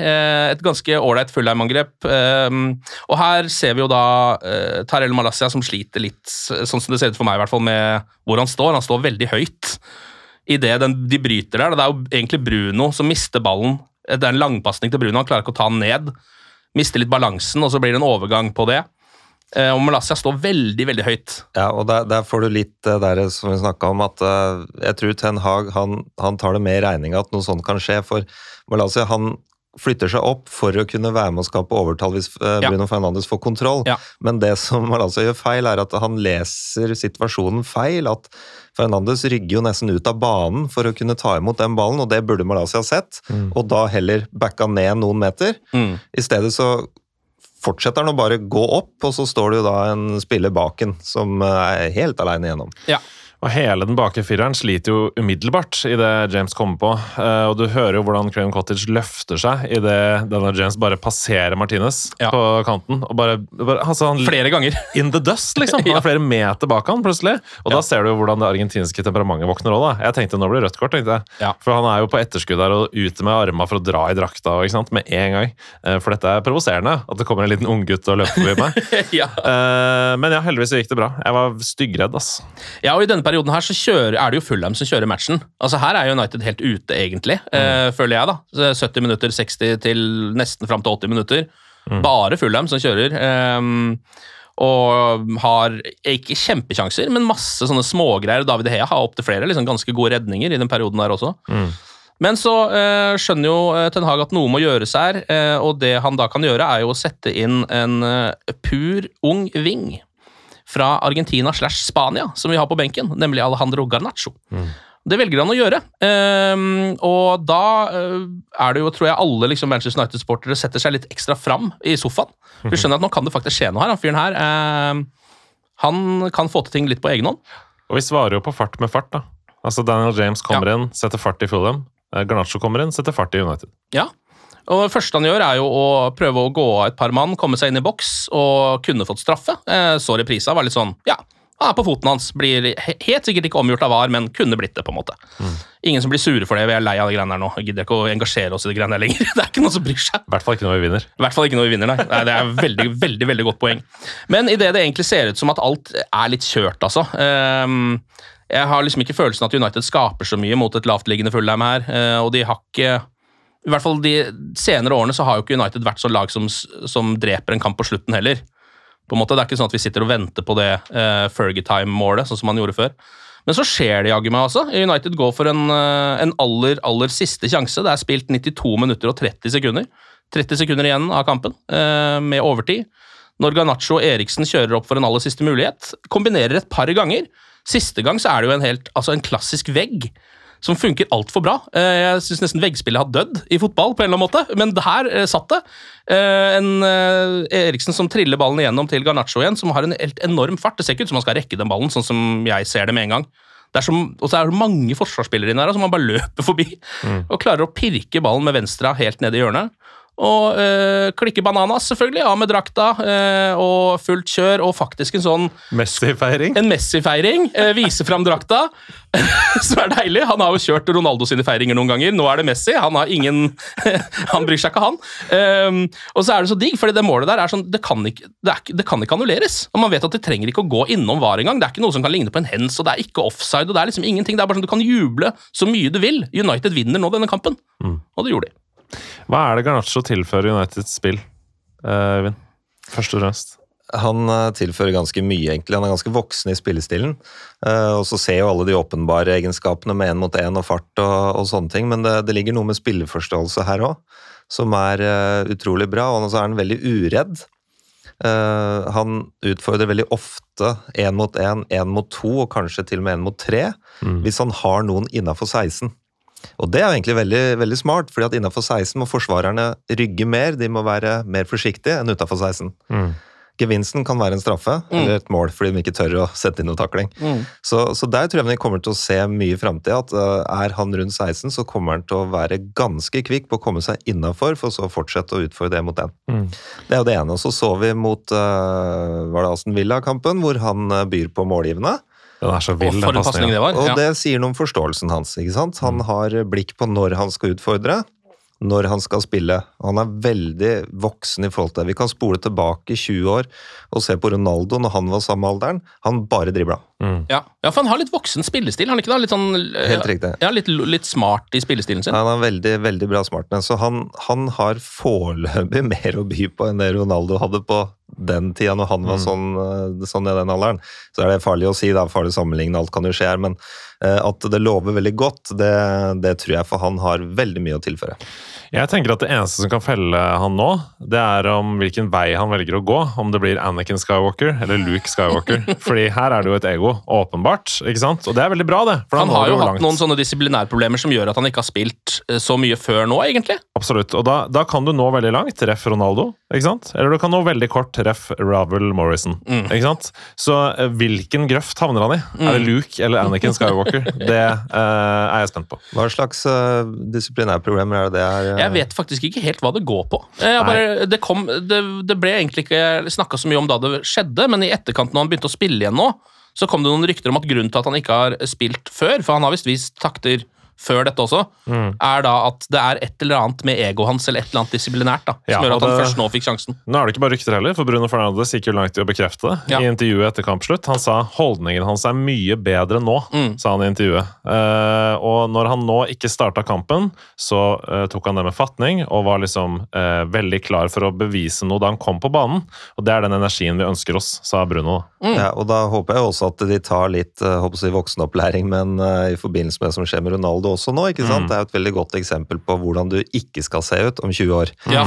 et ganske ålreit Fulham-angrep. Og her ser vi jo da Tarell Malacia som sliter litt, sånn som det ser ut for meg i hvert fall, med hvor han står. Han står veldig høyt i det de bryter der. Det jo egentlig Bruno som mister ballen. Det en langpassning til Bruno, han klarer ikke å ta den ned. Mister litt balansen, og så blir det en overgang på det. Og Malacia står veldig, veldig høyt. Ja, og der får du litt der som vi snakket om, at jeg tror Ten Hag, han tar det med i regning at noe sånt kan skje, for Malacia, han flytter seg opp for å kunne være med å skape overtall hvis Bruno Fernandes får kontroll. Men det som Malacia gjør feil, at han leser situasjonen feil, at Fernandes rygger jo nesten ut av banen for å kunne ta imot den ballen, og det burde Malacia sett, og da heller backa ned noen meter. I stedet så fortsetter han å bare gå opp, og så står det jo da en spiller baken som helt alene igjennom. Ja. Og hele den bakre fireren sliter jo umiddelbart i det James kommer på, og du hører jo hvordan Craven Cottage løfter seg i det denne James bare passerer Martinez på kanten, og bare altså han flere ganger. In the dust, liksom. Han flere meter bak han, plutselig. Og da ser du jo hvordan det argentinske temperamentet våkner også, da. Jeg tenkte, nå blir det rødt kort, tenkte jeg. For han jo på etterskudd der, og ute med armene for å dra i drakta, ikke sant, med en gang. For dette provoserende, at det kommer en liten unggutt og løper forbi meg. Men ja, heldigvis gikk det bra. Jeg var styggredd, ass. Ja, og i denne perioden her så det jo Fulham som kjører matchen. Altså her United helt ute egentlig, føler jeg da. 70 minutter, 60 til nesten frem til 80 minutter. Bare Fulham som kjører. Og har ikke kjempekjanser, men masse sånne smågreier. David De Gea har opp til flere liksom ganske gode redninger i den perioden der også. Men så skjønner jo Ten Hag at noe må gjøres her, og det han da kan gjøre jo å sette inn en pur ung ving fra Argentina / Spania, som vi har på benken, nemlig Alejandro Garnacho. Det velger han å gjøre. Og da det jo, tror jeg, alle liksom, Manchester United-sportere setter seg litt ekstra fram i sofaen. Vi skjønner at nå kan det faktisk skje noe her. Han fyren her, han kan få til ting litt på egen hånd. Og vi svarer jo på fart med fart, da. Altså Daniel James kommer inn, setter fart i Fulham. Garnacho kommer inn, setter fart i United. Ja. Og det første han gjør jo å prøve å gå av et par mann, komme seg inn i boks og kunne fått straffe. Så reprisa var litt sånn, han på foten hans, blir helt sikkert ikke omgjort av VAR, men kunne blitt det på en måte. Ingen som blir sure for det, vi lei av det greiene her nå. Jeg gidder ikke å engasjere oss i det greiene her lenger. Det ikke noen som bryr seg. I hvert fall ikke når vi vinner. I hvert fall ikke når vi vinner, nei. Det veldig, veldig, veldig godt poeng. Men i det egentlig ser ut som at alt litt kjørt, altså. Jeg har liksom ikke følelsen at United skaper så mye mot et lavtliggende Fulham her, og de har ikke... I hvert fall de senere årene så har jo ikke United vært så lag som dreper en kamp på slutten heller. På en måte, det ikke sånn at vi sitter og venter på det Fergie-time-målet, sånn som man gjorde før. Men så skjer det jaggu meg altså. United går for en aller siste sjanse. Det spilt 92 minutter og 30 sekunder. 30 sekunder igjen av kampen, med overtid. Når Garnacho og Eriksen kjører opp for en aller siste mulighet, kombinerer et par ganger. Siste gang så det jo en klassisk vegg, som funker alt for bra. Jeg synes nesten veggspillet har dødd i fotball på en eller annen måte, men det her satt det. Eriksen som triller ballen igjennom til Garnacho igjen, som har en helt enorm fart. Det ser ikke ut som han skal rekke den ballen, sånn som jeg ser det med en gang. Og så det mange forsvarsspillere inne her, som han bare løper forbi, og klarer å pirke ballen med venstre helt ned i hjørnet. og klikke bananas selvfølgelig, av med drakta, og fullt kjør, og faktisk en sånn Messi-feiring. En Messi-feiring, vise frem drakta, som deilig. Han har jo kjørt Ronaldo sine feiringer noen ganger, nå det Messi, han har ingen, han bryr seg ikke han. Og så det så digg, fordi det målet der sånn, det kan ikke annulleres, og man vet at det trenger ikke å gå innom VAR engang, det ikke noe som kan ligne på en hens, og det ikke offside, og det liksom ingenting, det bare sånn, du kan juble så mye du vil. United vinner nå denne kampen, og det gjorde de. Hva det Garnacho tilfører Uniteds spill, Øyvind? Først og fremst. Han tilfører ganske mye, egentlig. Han ganske voksen i spillestilen. Og så ser jo alle de åpenbare egenskapene med 1 mot 1 og fart og sånne ting, men det ligger noe med spilleforståelse her også, som utrolig bra, og så han veldig uredd. Han utfordrer veldig ofte 1 mot 1, 1 mot 2, og kanskje til og med 1 mot 3, hvis han har noen innenfor 16. Og det egentlig veldig, veldig smart, fordi at innenfor 16 må forsvarerne rygge mer, de må være mer forsiktige enn utenfor 16. Gevinsten kan være en straffe, eller et mål, fordi de ikke tør å sette inn noe takling. Så der tror jeg vi kommer til å se mye i fremtiden, at han rundt 16, så kommer han til å være ganske kvikk på å komme seg innenfor, for så å fortsette å utfordre det mot den. Det jo det ene, og så vi mot, var det Aston Villa-kampen, hvor han byr på målgivende. Den så vild, for en passning det var. Og det sier noe om forståelsen hans, ikke sant? Han har blikk på når han skal utfordre, når han skal spille. Han veldig voksen i forhold til det. Vi kan spole tilbake 20 år og se på Ronaldo når han var samme alderen. Han bare dribla. Ja, for han har litt voksen spillestil, han ikke da? Litt sånn, helt riktig. Ja, litt smart i spillestilen sin. Han veldig, veldig bra smartness, så han har foreløpig mer å by på enn det Ronaldo hadde på den tida når han var sånn i den alderen. Så det farlig å si, det farlig å sammenligne, alt kan jo skje her, men at det lover veldig godt, det tror jeg, for han har veldig mye å tilføre. Jeg tenker at det eneste som kan felle han nå, det om hvilken vei han velger å gå, om det blir Anakin Skywalker eller Luke Skywalker. Fordi her det jo et ego, åpenbart, ikke sant? Og det veldig bra det. For han har jo hatt noen sånne disiplinærproblemer som gjør at han ikke har spilt så mye før nå, egentlig. Absolutt, og da kan du nå veldig langt, ref Ronaldo, ikke sant? Eller du kan nå veldig kort, ref Ravel Morrison, ikke sant? Så hvilken grøft havner han i? Det Luke eller Anakin Skywalker? Det jeg spent på. Hva slags disiplinærproblemer det Jeg vet faktisk ikke helt hva det går på. Det ble egentlig ikke snakket så mye om da det skjedde, men i etterkant når han begynte å spille igjen nå, så kom det noen rykter om at grunnen til at han ikke har spilt før, for han har vist takter før dette også, da at det et eller annet med ego hans, eller et eller annet disiplinært da, som gjør at han først nå fikk sjansen. Nå det ikke bare rykter heller, for Bruno Fernandes gikk jo langt i å bekrefte det i intervjuet etter kampslutt. Han sa holdningen hans mye bedre nå, sa han i intervjuet. Og når han nå ikke startet kampen, så tok han det med fatning, og var liksom veldig klar for å bevise noe da han kom på banen, og det den energien vi ønsker oss, sa Bruno. Ja, og da håper jeg også at de tar litt voksenopplæring, men i forbindelse med det som skjer med Ronaldo også nå, ikke sant? Det jo et veldig godt eksempel på hvordan du ikke skal se ut om 20 år. Ja.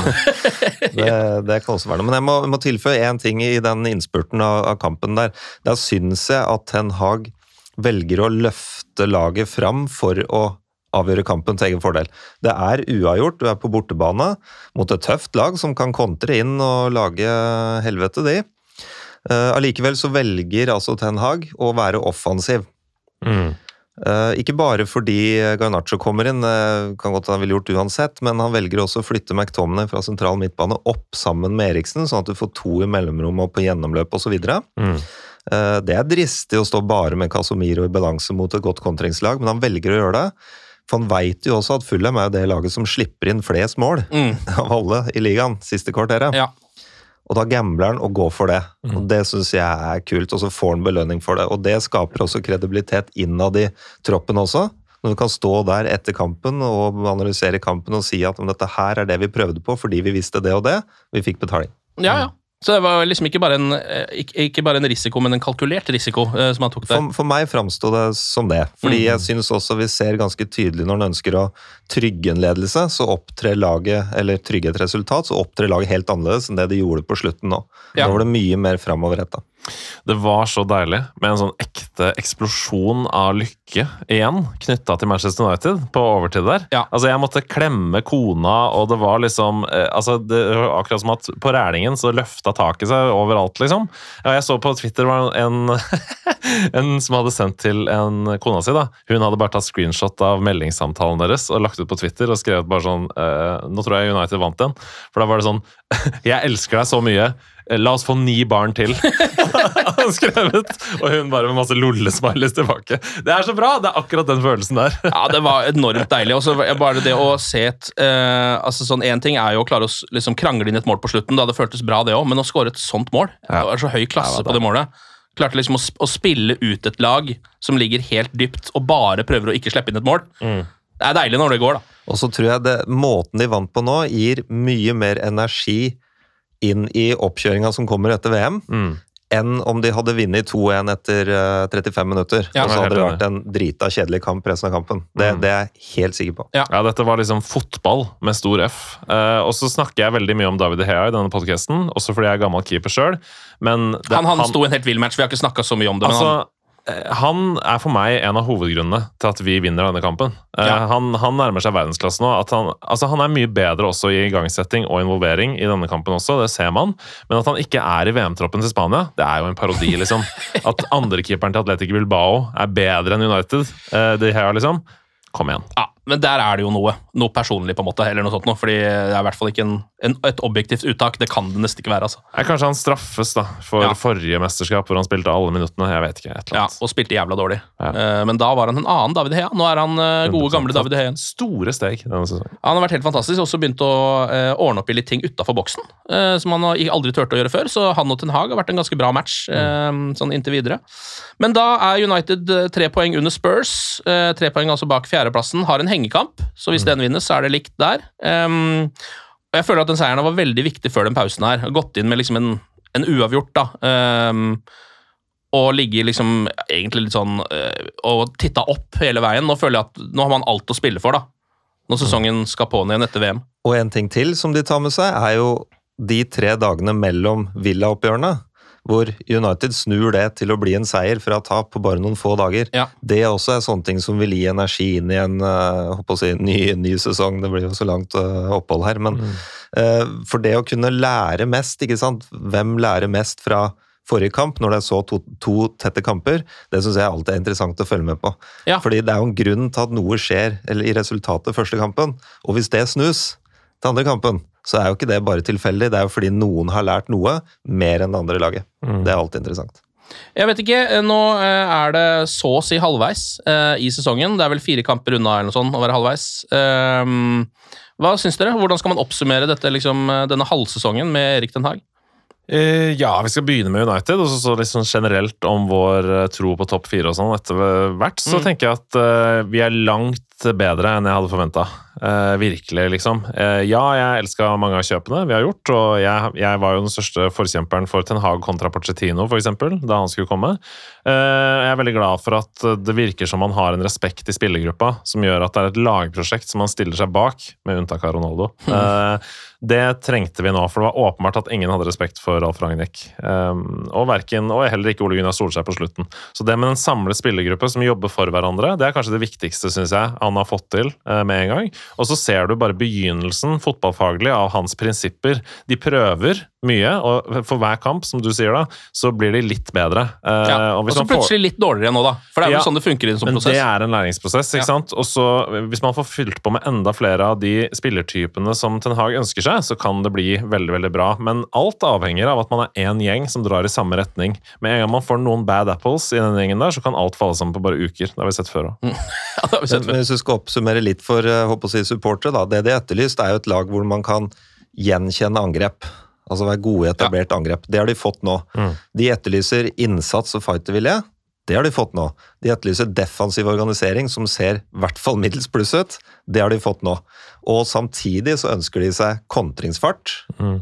det kan også være noe. Men jeg må tilføye en ting i den innspurten av kampen der. Da synes jeg at Ten Hag velger å løfte laget fram for å avgjøre kampen til egen fordel. Det uavgjort, du på bortebane mot et tøft lag som kan kontre inn og lage helvete de. Allikevel så velger altså Ten Hag å være offensiv. Ikke bare fordi Garnacho kommer inn, kan godt han ville gjort uansett, men han velger også å flytte McTominay fra sentral midtbane opp sammen med Eriksen, sånn at du får 2 i mellomrom og på gjennomløp og så videre. Det dristig å stå bare med Casemiro i balanse mot et godt kontringslag, men han velger å gjøre det, for han vet jo også at Fulham jo det laget som slipper inn flest mål av alle i ligaen, siste kvarteret. Ja. Og da gambler han og går for det. Og det synes jeg kult, og så får han belønning for det. Og det skaper også kredibilitet innad i troppen også. Når du kan stå der etter kampen og analysere kampen og si at dette her det vi prøvde på fordi vi visste det og det, vi fikk betaling. Ja. Så det var liksom ikke bare en risiko, men en kalkulert risiko som han tok der. For meg fremstod det som det. Fordi jeg synes også vi ser ganske tydelig når han ønsker å trygge en ledelse, så opptrer laget, eller trygge et resultat, så opptrer laget helt annerledes enn det de gjorde på slutten nå. Da var det mye mer fremoverrettet. Det var så deilig med en sånn ekte eksplosjon av lykke igjen, knyttet til Manchester United på overtid der. Ja. Altså, jeg måtte klemme kona, og det var liksom det var akkurat som at på rælingen så løftet taket seg overalt, liksom. Ja, jeg så på Twitter var en som hadde sendt til en kona si da. Hun hadde bare tatt screenshot av meldingssamtalen deres og lagt ut på Twitter og skrevet bare sånn, nå tror jeg United vant den. For da var det sånn, jeg elsker deg så mye, la oss få 9 barn til. Han skrevet, og hun bare med masse lollesmileys tilbake. Det så bra, det akkurat den følelsen der. Ja, det var enormt deilig. Og så bare det å se altså sånn, en ting jo å klare å liksom krangle inn et mål på slutten, da det føltes bra det også, men å skåre et sånt mål, det var så høy klasse på det målet. Klarte liksom å spille ut et lag som ligger helt dypt, og bare prøver å ikke slippe inn et mål. Det deilig når det går, da. Og så tror jeg måten de vant på nå gir mye mer energi inn i oppkjøringa som kommer etter VM, enn om de hadde vunnet 2-1 etter 35 minutter. Ja, og så hadde det vært en drita kjedelig kamp resten av kampen. Det jeg helt sikker på. Ja, dette var liksom fotball med stor F. Og så snakker jeg veldig mye om David De Gea i denne podcasten, også fordi jeg gammel keeper selv. Men han sto en helt vild match, vi har ikke snakket så mye om det. Altså, han for meg en av hovedgrunnene til at vi vinner denne kampen. Han nærmer seg verdensklasse nå. Han mye bedre også i igangsetting og involvering i denne kampen også, det ser man. Men at han ikke i VM-troppen til Spania, det jo en parodi, liksom. At andrekeeperen til Athletic Bilbao bedre enn United, det her liksom. Kom igjen. Ja, men der det jo noe personlig på en måte, eller noe sånt noe, fordi det I hvert fall ikke et objektivt uttak, det kan det nesten ikke være, altså. Kanskje han straffes da, for forrige mesterskap, hvor han spilte alle minuttene, jeg vet ikke, et eller annet. Ja, og spilte jævla dårlig. Men da var han en annen David De Gea, nå han gode gamle David De Gea. Store steg denne sesongen. Han har vært helt fantastisk, også begynt å ordne opp I litt ting utenfor boksen, som han aldri tørte å gjøre før, så han og Ten Hag har vært en ganske bra match, sånn inntil videre. Men da United 3 poeng under Spurs, 3 poeng altså bak fjerdeplassen, har en hengekamp, så hvis den vinnes, så det likt der. Og jeg føler at den seieren var veldig viktig før den pausen her. Gått inn med liksom en uavgjort, da. Og ligge liksom egentlig litt sånn og titta opp hele veien. Nå føler jeg at nå har man alt å spille for, da. Når sesongen skal på igjen etter VM. Og en ting til som de tar med seg, jo de 3 dagene mellom Villa-oppgjørene, hvor United snur det til å bli en seier fra tap på bare noen få dager. Ja. Det også sånne ting som vil gi energi inn I en ny sesong. Det blir jo så langt opphold her, men for det å kunne lære mest, ikke sant? Hvem lærer mest fra forrige kamp, når det så to tette kamper, det synes jeg alltid interessant å følge med på. Ja. Fordi det jo en grunn til at noe skjer eller I resultatet første kampen, og hvis det snus til andre kampen, så jo ikke det bare tilfeldig, det jo fordi noen har lært noe mer enn det andre laget. Det alltid interessant. Jeg vet ikke, nå det så å si halvveis I sesongen, det vel 4 kamper unna eller noe sånt å være halvveis. Hva synes dere? Hvordan skal man oppsummere dette, liksom, denne halvsesongen med Erik Ten Hag? Ja, vi skal begynne med United, og så liksom generelt om vår tro på topp 4 og sånn etter hvert, så tenker jeg at vi langt bedre enn jeg hadde forventet. Virkelig, liksom. Ja, jeg elsket mange av kjøpene vi har gjort, og jeg var jo den største forkjemperen for Ten Hag kontra Pochettino, for eksempel, da han skulle komme. Jeg veldig glad for at det virker som man har en respekt I spillergruppa, som gjør at det et lagprosjekt som man stiller seg bak, med unntak av Ronaldo. Det trengte vi nå, for det var åpenbart at ingen hadde respekt for Ralf Rangnick. Og heller ikke Ole Gunnar Solskjær på slutten. Så det med en samlet spillergruppe som jobber for hverandre, det kanskje det viktigste, synes jeg, han har fått til med en gang. Og så ser du bare begynnelsen fotballfaglig av hans prinsipper. De prøver mye, og for hver kamp, som du sier da, så blir de litt bedre. Og så plutselig litt dårligere nå da, for det jo sånn det funker I en sånn prosess. Det en læringsprosess, ikke sant? Og så hvis man får fylt på med enda flere av de spillertypene som Ten Hag ønsker seg, så kan det bli veldig, veldig bra. Men alt avhenger av at man en gjeng som drar I samme retning. Med en gang man får noen bad apples I denne gjengen der, så kan alt falle sammen på bare uker. Det har vi sett før også. Ja, det har vi sett før. Men hvis du skal oppsummere litt for supportere, da, det de etterlyst jo et lag hvor man kan gjenkjenne angrep. Altså være gode I etablert angrep. Det har de fått nå. De etterlyser innsats og fightervilje. Det har de fått nå. De etterlyser defensiv organisering som ser I hvert fall middels pluss ut. Det har de fått nå. Og samtidig så ønsker de seg kontringsfart.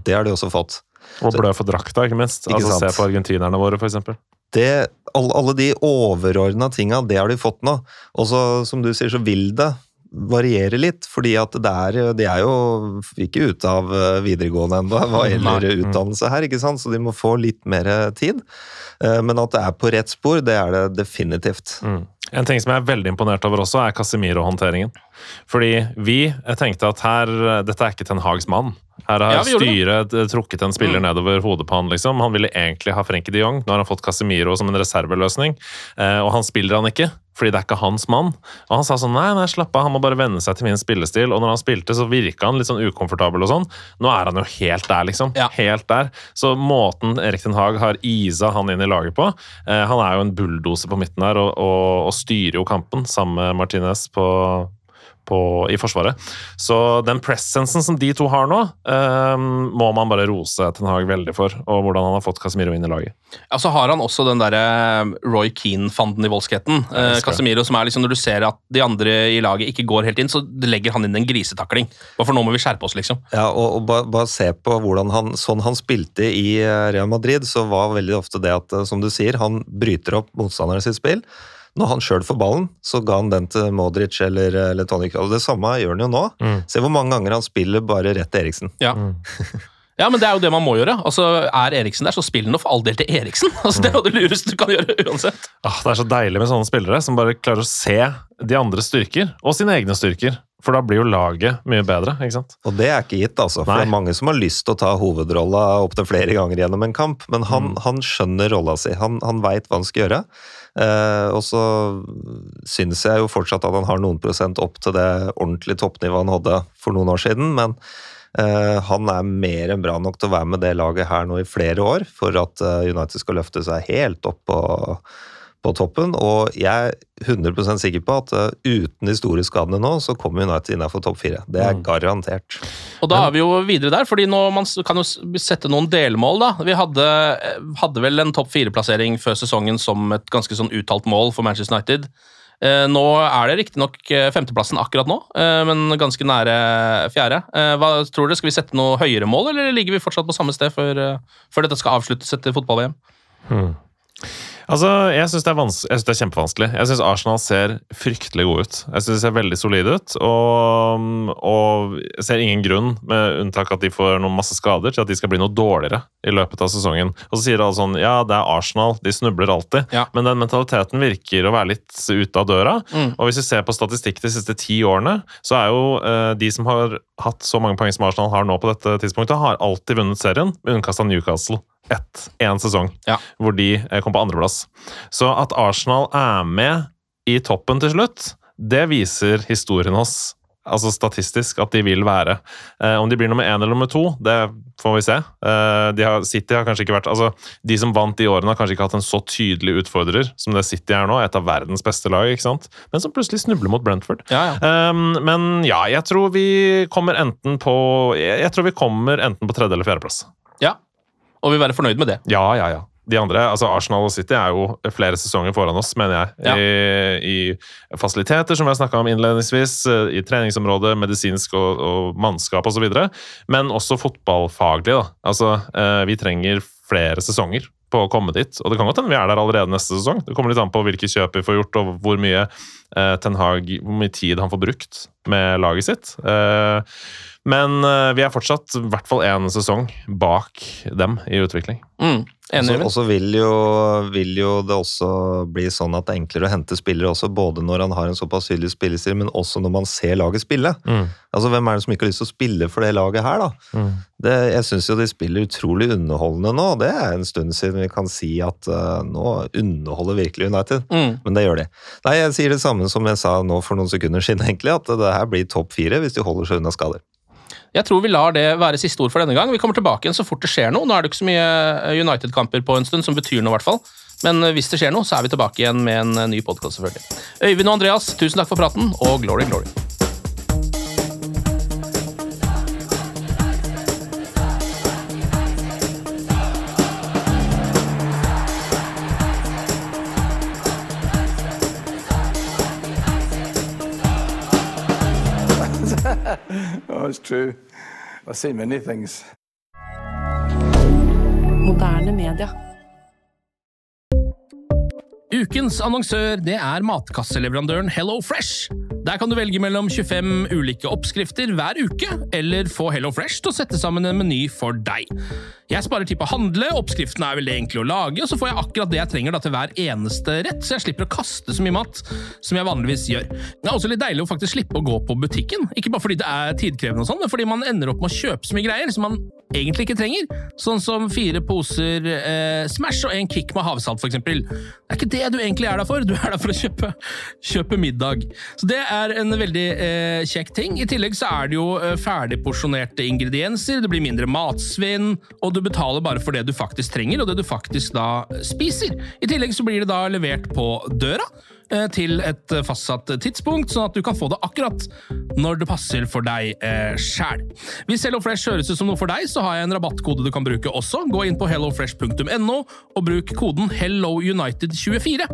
Det har de også fått. Og blø for drakta, ikke minst. Ikke se på argentinerne våre, for eksempel. Alle de overordnede tingene, det har de fått nå. Og så, som du sier, så vil det variere litt, fordi at de jo ikke ute av videregående enda, hva gjelder utdannelse her, ikke sant? Så de må få litt mer tid. Men at det på rett spor, det det definitivt. En ting som jeg veldig imponert over også, Casemiro-håndteringen. Fordi jeg tenkte at dette ikke Ten Hags mann. Her har styret trukket en spiller nedover hodet på han, liksom. Han ville egentlig ha Frenkie de Jong, nå har han fått Casemiro som en reserveløsning, og han spiller han ikke, fordi det ikke hans mann. Og han sa sånn, nei, slapp av, han må bare venne seg til min spillestil, og når han spilte så virket han litt sånn ukomfortabel og sånn. Nå han jo helt der, liksom. Ja. Helt der. Så måten Erik Ten Hag har isa han inn i laget på, han jo en bulldoser på midten her, og styrer jo kampen sammen med Martinez i forsvaret. Så den presensen som de to har nå, må man bare rose Ten Hag veldig for, og hvordan han har fått Casemiro inn i laget. Ja, så har han også den der Roy Keane-fanden i voldskheten. Casemiro som liksom, når du ser at de andre i laget ikke går helt inn, så legger han inn en grisetakling. For nå må vi skjerpe oss, liksom. Ja, og bare se på hvordan sånn han spilte i Real Madrid, så var veldig ofte det at, som du sier, han bryter opp motstanderen sitt spill. Når han selv får ballen, så ga han den til Modric eller Toni Kroos. Det samme gjør han jo nå. Se hvor mange ganger han spiller bare rett til Eriksen. Ja. Ja, men det jo det man må gjøre. Altså, Eriksen der, så spiller han for all del til Eriksen. Altså, det det lureste du kan gjøre uansett. Det så deilig med sånne spillere som bare klarer å se de andre styrker, og sine egne styrker. For da blir jo laget mye bedre, ikke sant? Og det ikke gitt, altså. For det mange som har lyst til å ta hovedrolla opp til flere ganger gjennom en kamp, men han skjønner rolla si. Han vet hva han skal gjøre. Og så synes jeg jo fortsatt at han har noen prosent opp til det ordentlige toppnivået han hadde for noen år siden, men han mer enn bra nok til å være med det laget her nå i flere år, for at United skal løfte seg helt opp på toppen, og jeg 100% sikker på at uten de store skadene nå, så kommer United innenfor topp 4. Det garantert. Og da vi jo videre der, fordi nå man kan jo sette noen delmål da. Vi hadde vel en topp 4-plassering før sesongen som et ganske sånn uttalt mål for Manchester United. Nå det riktig nok 5. plassen akkurat nå, men ganske nære 4. Hva tror dere? Skal vi sette noe høyere mål, eller ligger vi fortsatt på samme sted før dette skal avsluttes etter fotball-VM? Altså, jeg synes det kjempevanskelig. Jeg synes Arsenal ser fryktelig god ut. Jeg synes det ser veldig solid ut, og jeg ser ingen grunn, med unntak at de får noen masse skader, til at de skal bli noe dårligere i løpet av sesongen. Og så sier alle sånn, ja, det Arsenal, de snubler alltid, men den mentaliteten virker å være litt ute av døra. Og hvis vi ser på statistikk de siste 10 årene, så jo de som har hatt så mange poeng som Arsenal har nå på dette tidspunktet, har alltid vunnet serien, med unntkast av Newcastle. En sesong, hvor de kom på 2. plass. Så at Arsenal med i toppen til slutt, det viser historien oss, altså statistisk, at de vil være. Om de blir nummer 1 eller nummer 2, det får vi se. City har kanskje ikke vært, altså de som vant de årene har kanskje ikke hatt en så tydelig utfordrer som det City nå, et av verdens beste lag, ikke sant? Men som plutselig snubler mot Brentford. Men ja, jeg tror vi kommer enten på 3. eller 4. plass. Ja. Og vi være fornøyd med det. Ja. De andre, altså Arsenal og City jo flere sesonger foran oss, mener jeg. I fasiliteter, som vi har snakket om innledningsvis, i treningsområdet, medisinsk og mannskap og så videre, men også fotballfaglig. Da. Altså, vi trenger flere sesonger på å komme dit, og det kan godt hende vi der allerede neste sesong. Det kommer litt an på hvilke kjøp vi får gjort, og hvor mye Ten Hag, hvor mye tid han får brukt med laget sitt. Men vi fortsatt i hvert fall 1 sesong bak dem i utvikling. Og så vil jo det også bli sånn at det enklere å hente spillere også, både når han har en såpass tydelig spillestil, men også når man ser laget spille. Altså, hvem det som ikke har lyst til å spille for det laget her, da? Jeg synes jo de spiller utrolig underholdende nå, og det en stund siden vi kan si at nå underholder virkelig United, men det gjør de. Nei, jeg sier det samme som jeg sa nå for noen sekunder siden, egentlig, at det her blir topp 4 hvis de holder seg unna skader. Jeg tror vi lar det være siste ord for denne gang. Vi kommer tilbake igjen så fort det skjer noe. Nå det ikke så mye United-kamper på en stund, som betyr noe i hvert fall. Men hvis det skjer noe, så vi tilbake igjen med en ny podcast selvfølgelig. Øyvind og Andreas, tusen takk for praten, og glory, glory. Oh, it's true. I've seen many things. Moderne media. Ukens annonsør, det matkasseleveraandøren Hello Fresh. Der kan du velge mellom 25 ulike oppskrifter hver uke, eller få HelloFresh til å sette sammen en meny for deg. Jeg sparer tid på å handle, oppskriften veldig enkle å lage, og så får jeg akkurat det jeg trenger til hver eneste rett, så jeg slipper å kaste så mye mat som jeg vanligvis gjør. Det også litt deilig å faktisk slippe å gå på butikken, ikke bare fordi det tidkrevende og sånn, men fordi man ender opp med å kjøpe så mye greier som man egentlig ikke trenger, sånn som 4 poser Smash og en kick med havsalt for eksempel. Det ikke det du egentlig der for, du der for å kjøpe middag. Så det en veldig kjekk ting. I tillegg så det jo ferdigporsjonerte ingredienser, det blir mindre matsvinn, og du betaler bare for det du faktisk trenger, og det du faktisk da spiser. I tillegg så blir det da levert på døra, til et fastsatt tidspunkt, sånn at du kan få det akkurat når det passer for deg selv. Hvis HelloFresh høres ut som noe for deg, så har jeg en rabattkode du kan bruke også. Gå inn på hellofresh.no og bruk koden HelloUnited24.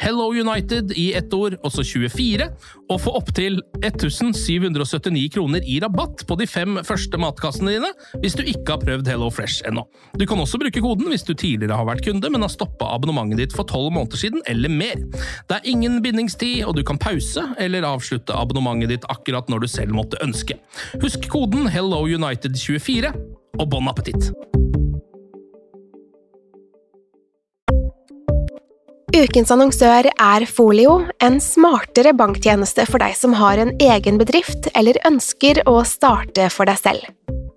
HelloUnited i ett ord, også 24, og få opp til 1779 kroner i rabatt på de 5 første matkassene dine, hvis du ikke har prøvd HelloFresh ennå. Du kan også bruke koden hvis du tidligere har vært kunde, men har stoppet abonnementet ditt for 12 måneder siden, eller mer. Det ingen bindingstid, og du kan pause eller avslutte abonnementet ditt akkurat når du selv måtte ønske. Husk koden HelloUnited24, og bon appetitt! Ukens annonsør Folio, en smartere banktjeneste for deg som har en egen bedrift eller ønsker å starte for deg selv.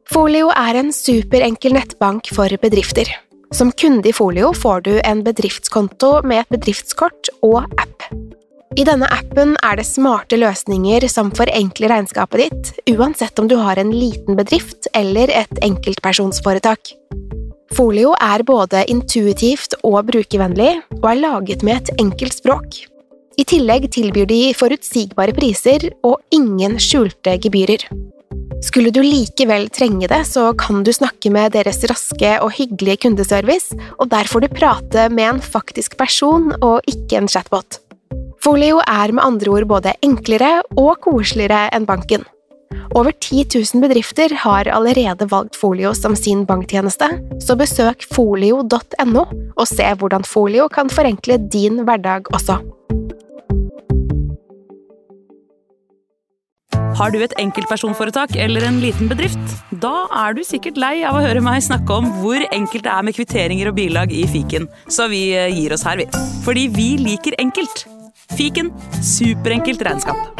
Folio en superenkel nettbank for bedrifter. Som kunde i Folio får du en bedriftskonto med et bedriftskort og app. I denne appen det smarte løsninger som forenkler regnskapet ditt, uansett om du har en liten bedrift eller et enkeltpersonsforetak. Folio både intuitivt og brukervennlig, og laget med et enkelt språk. I tillegg tilbyr de forutsigbare priser og ingen skjulte gebyrer. Skulle du likevel trenge det, så kan du snakke med deres raske og hyggelige kundeservice, og der får du prate med en faktisk person og ikke en chatbot. Folio med andre ord både enklere og koseligere enn banken. Over 10 000 bedrifter har allerede valgt Folio som sin banktjeneste, så besøk folio.no og se hvordan Folio kan forenkle din hverdag også. Har du et enkeltpersonforetak eller en liten bedrift? Da du sikkert lei av å høre meg snakke om hvor enkelt det med kvitteringer og bilag i Fiken, så vi gir oss her, vi. Fordi vi liker enkelt. Fiken, superenkelt regnskap.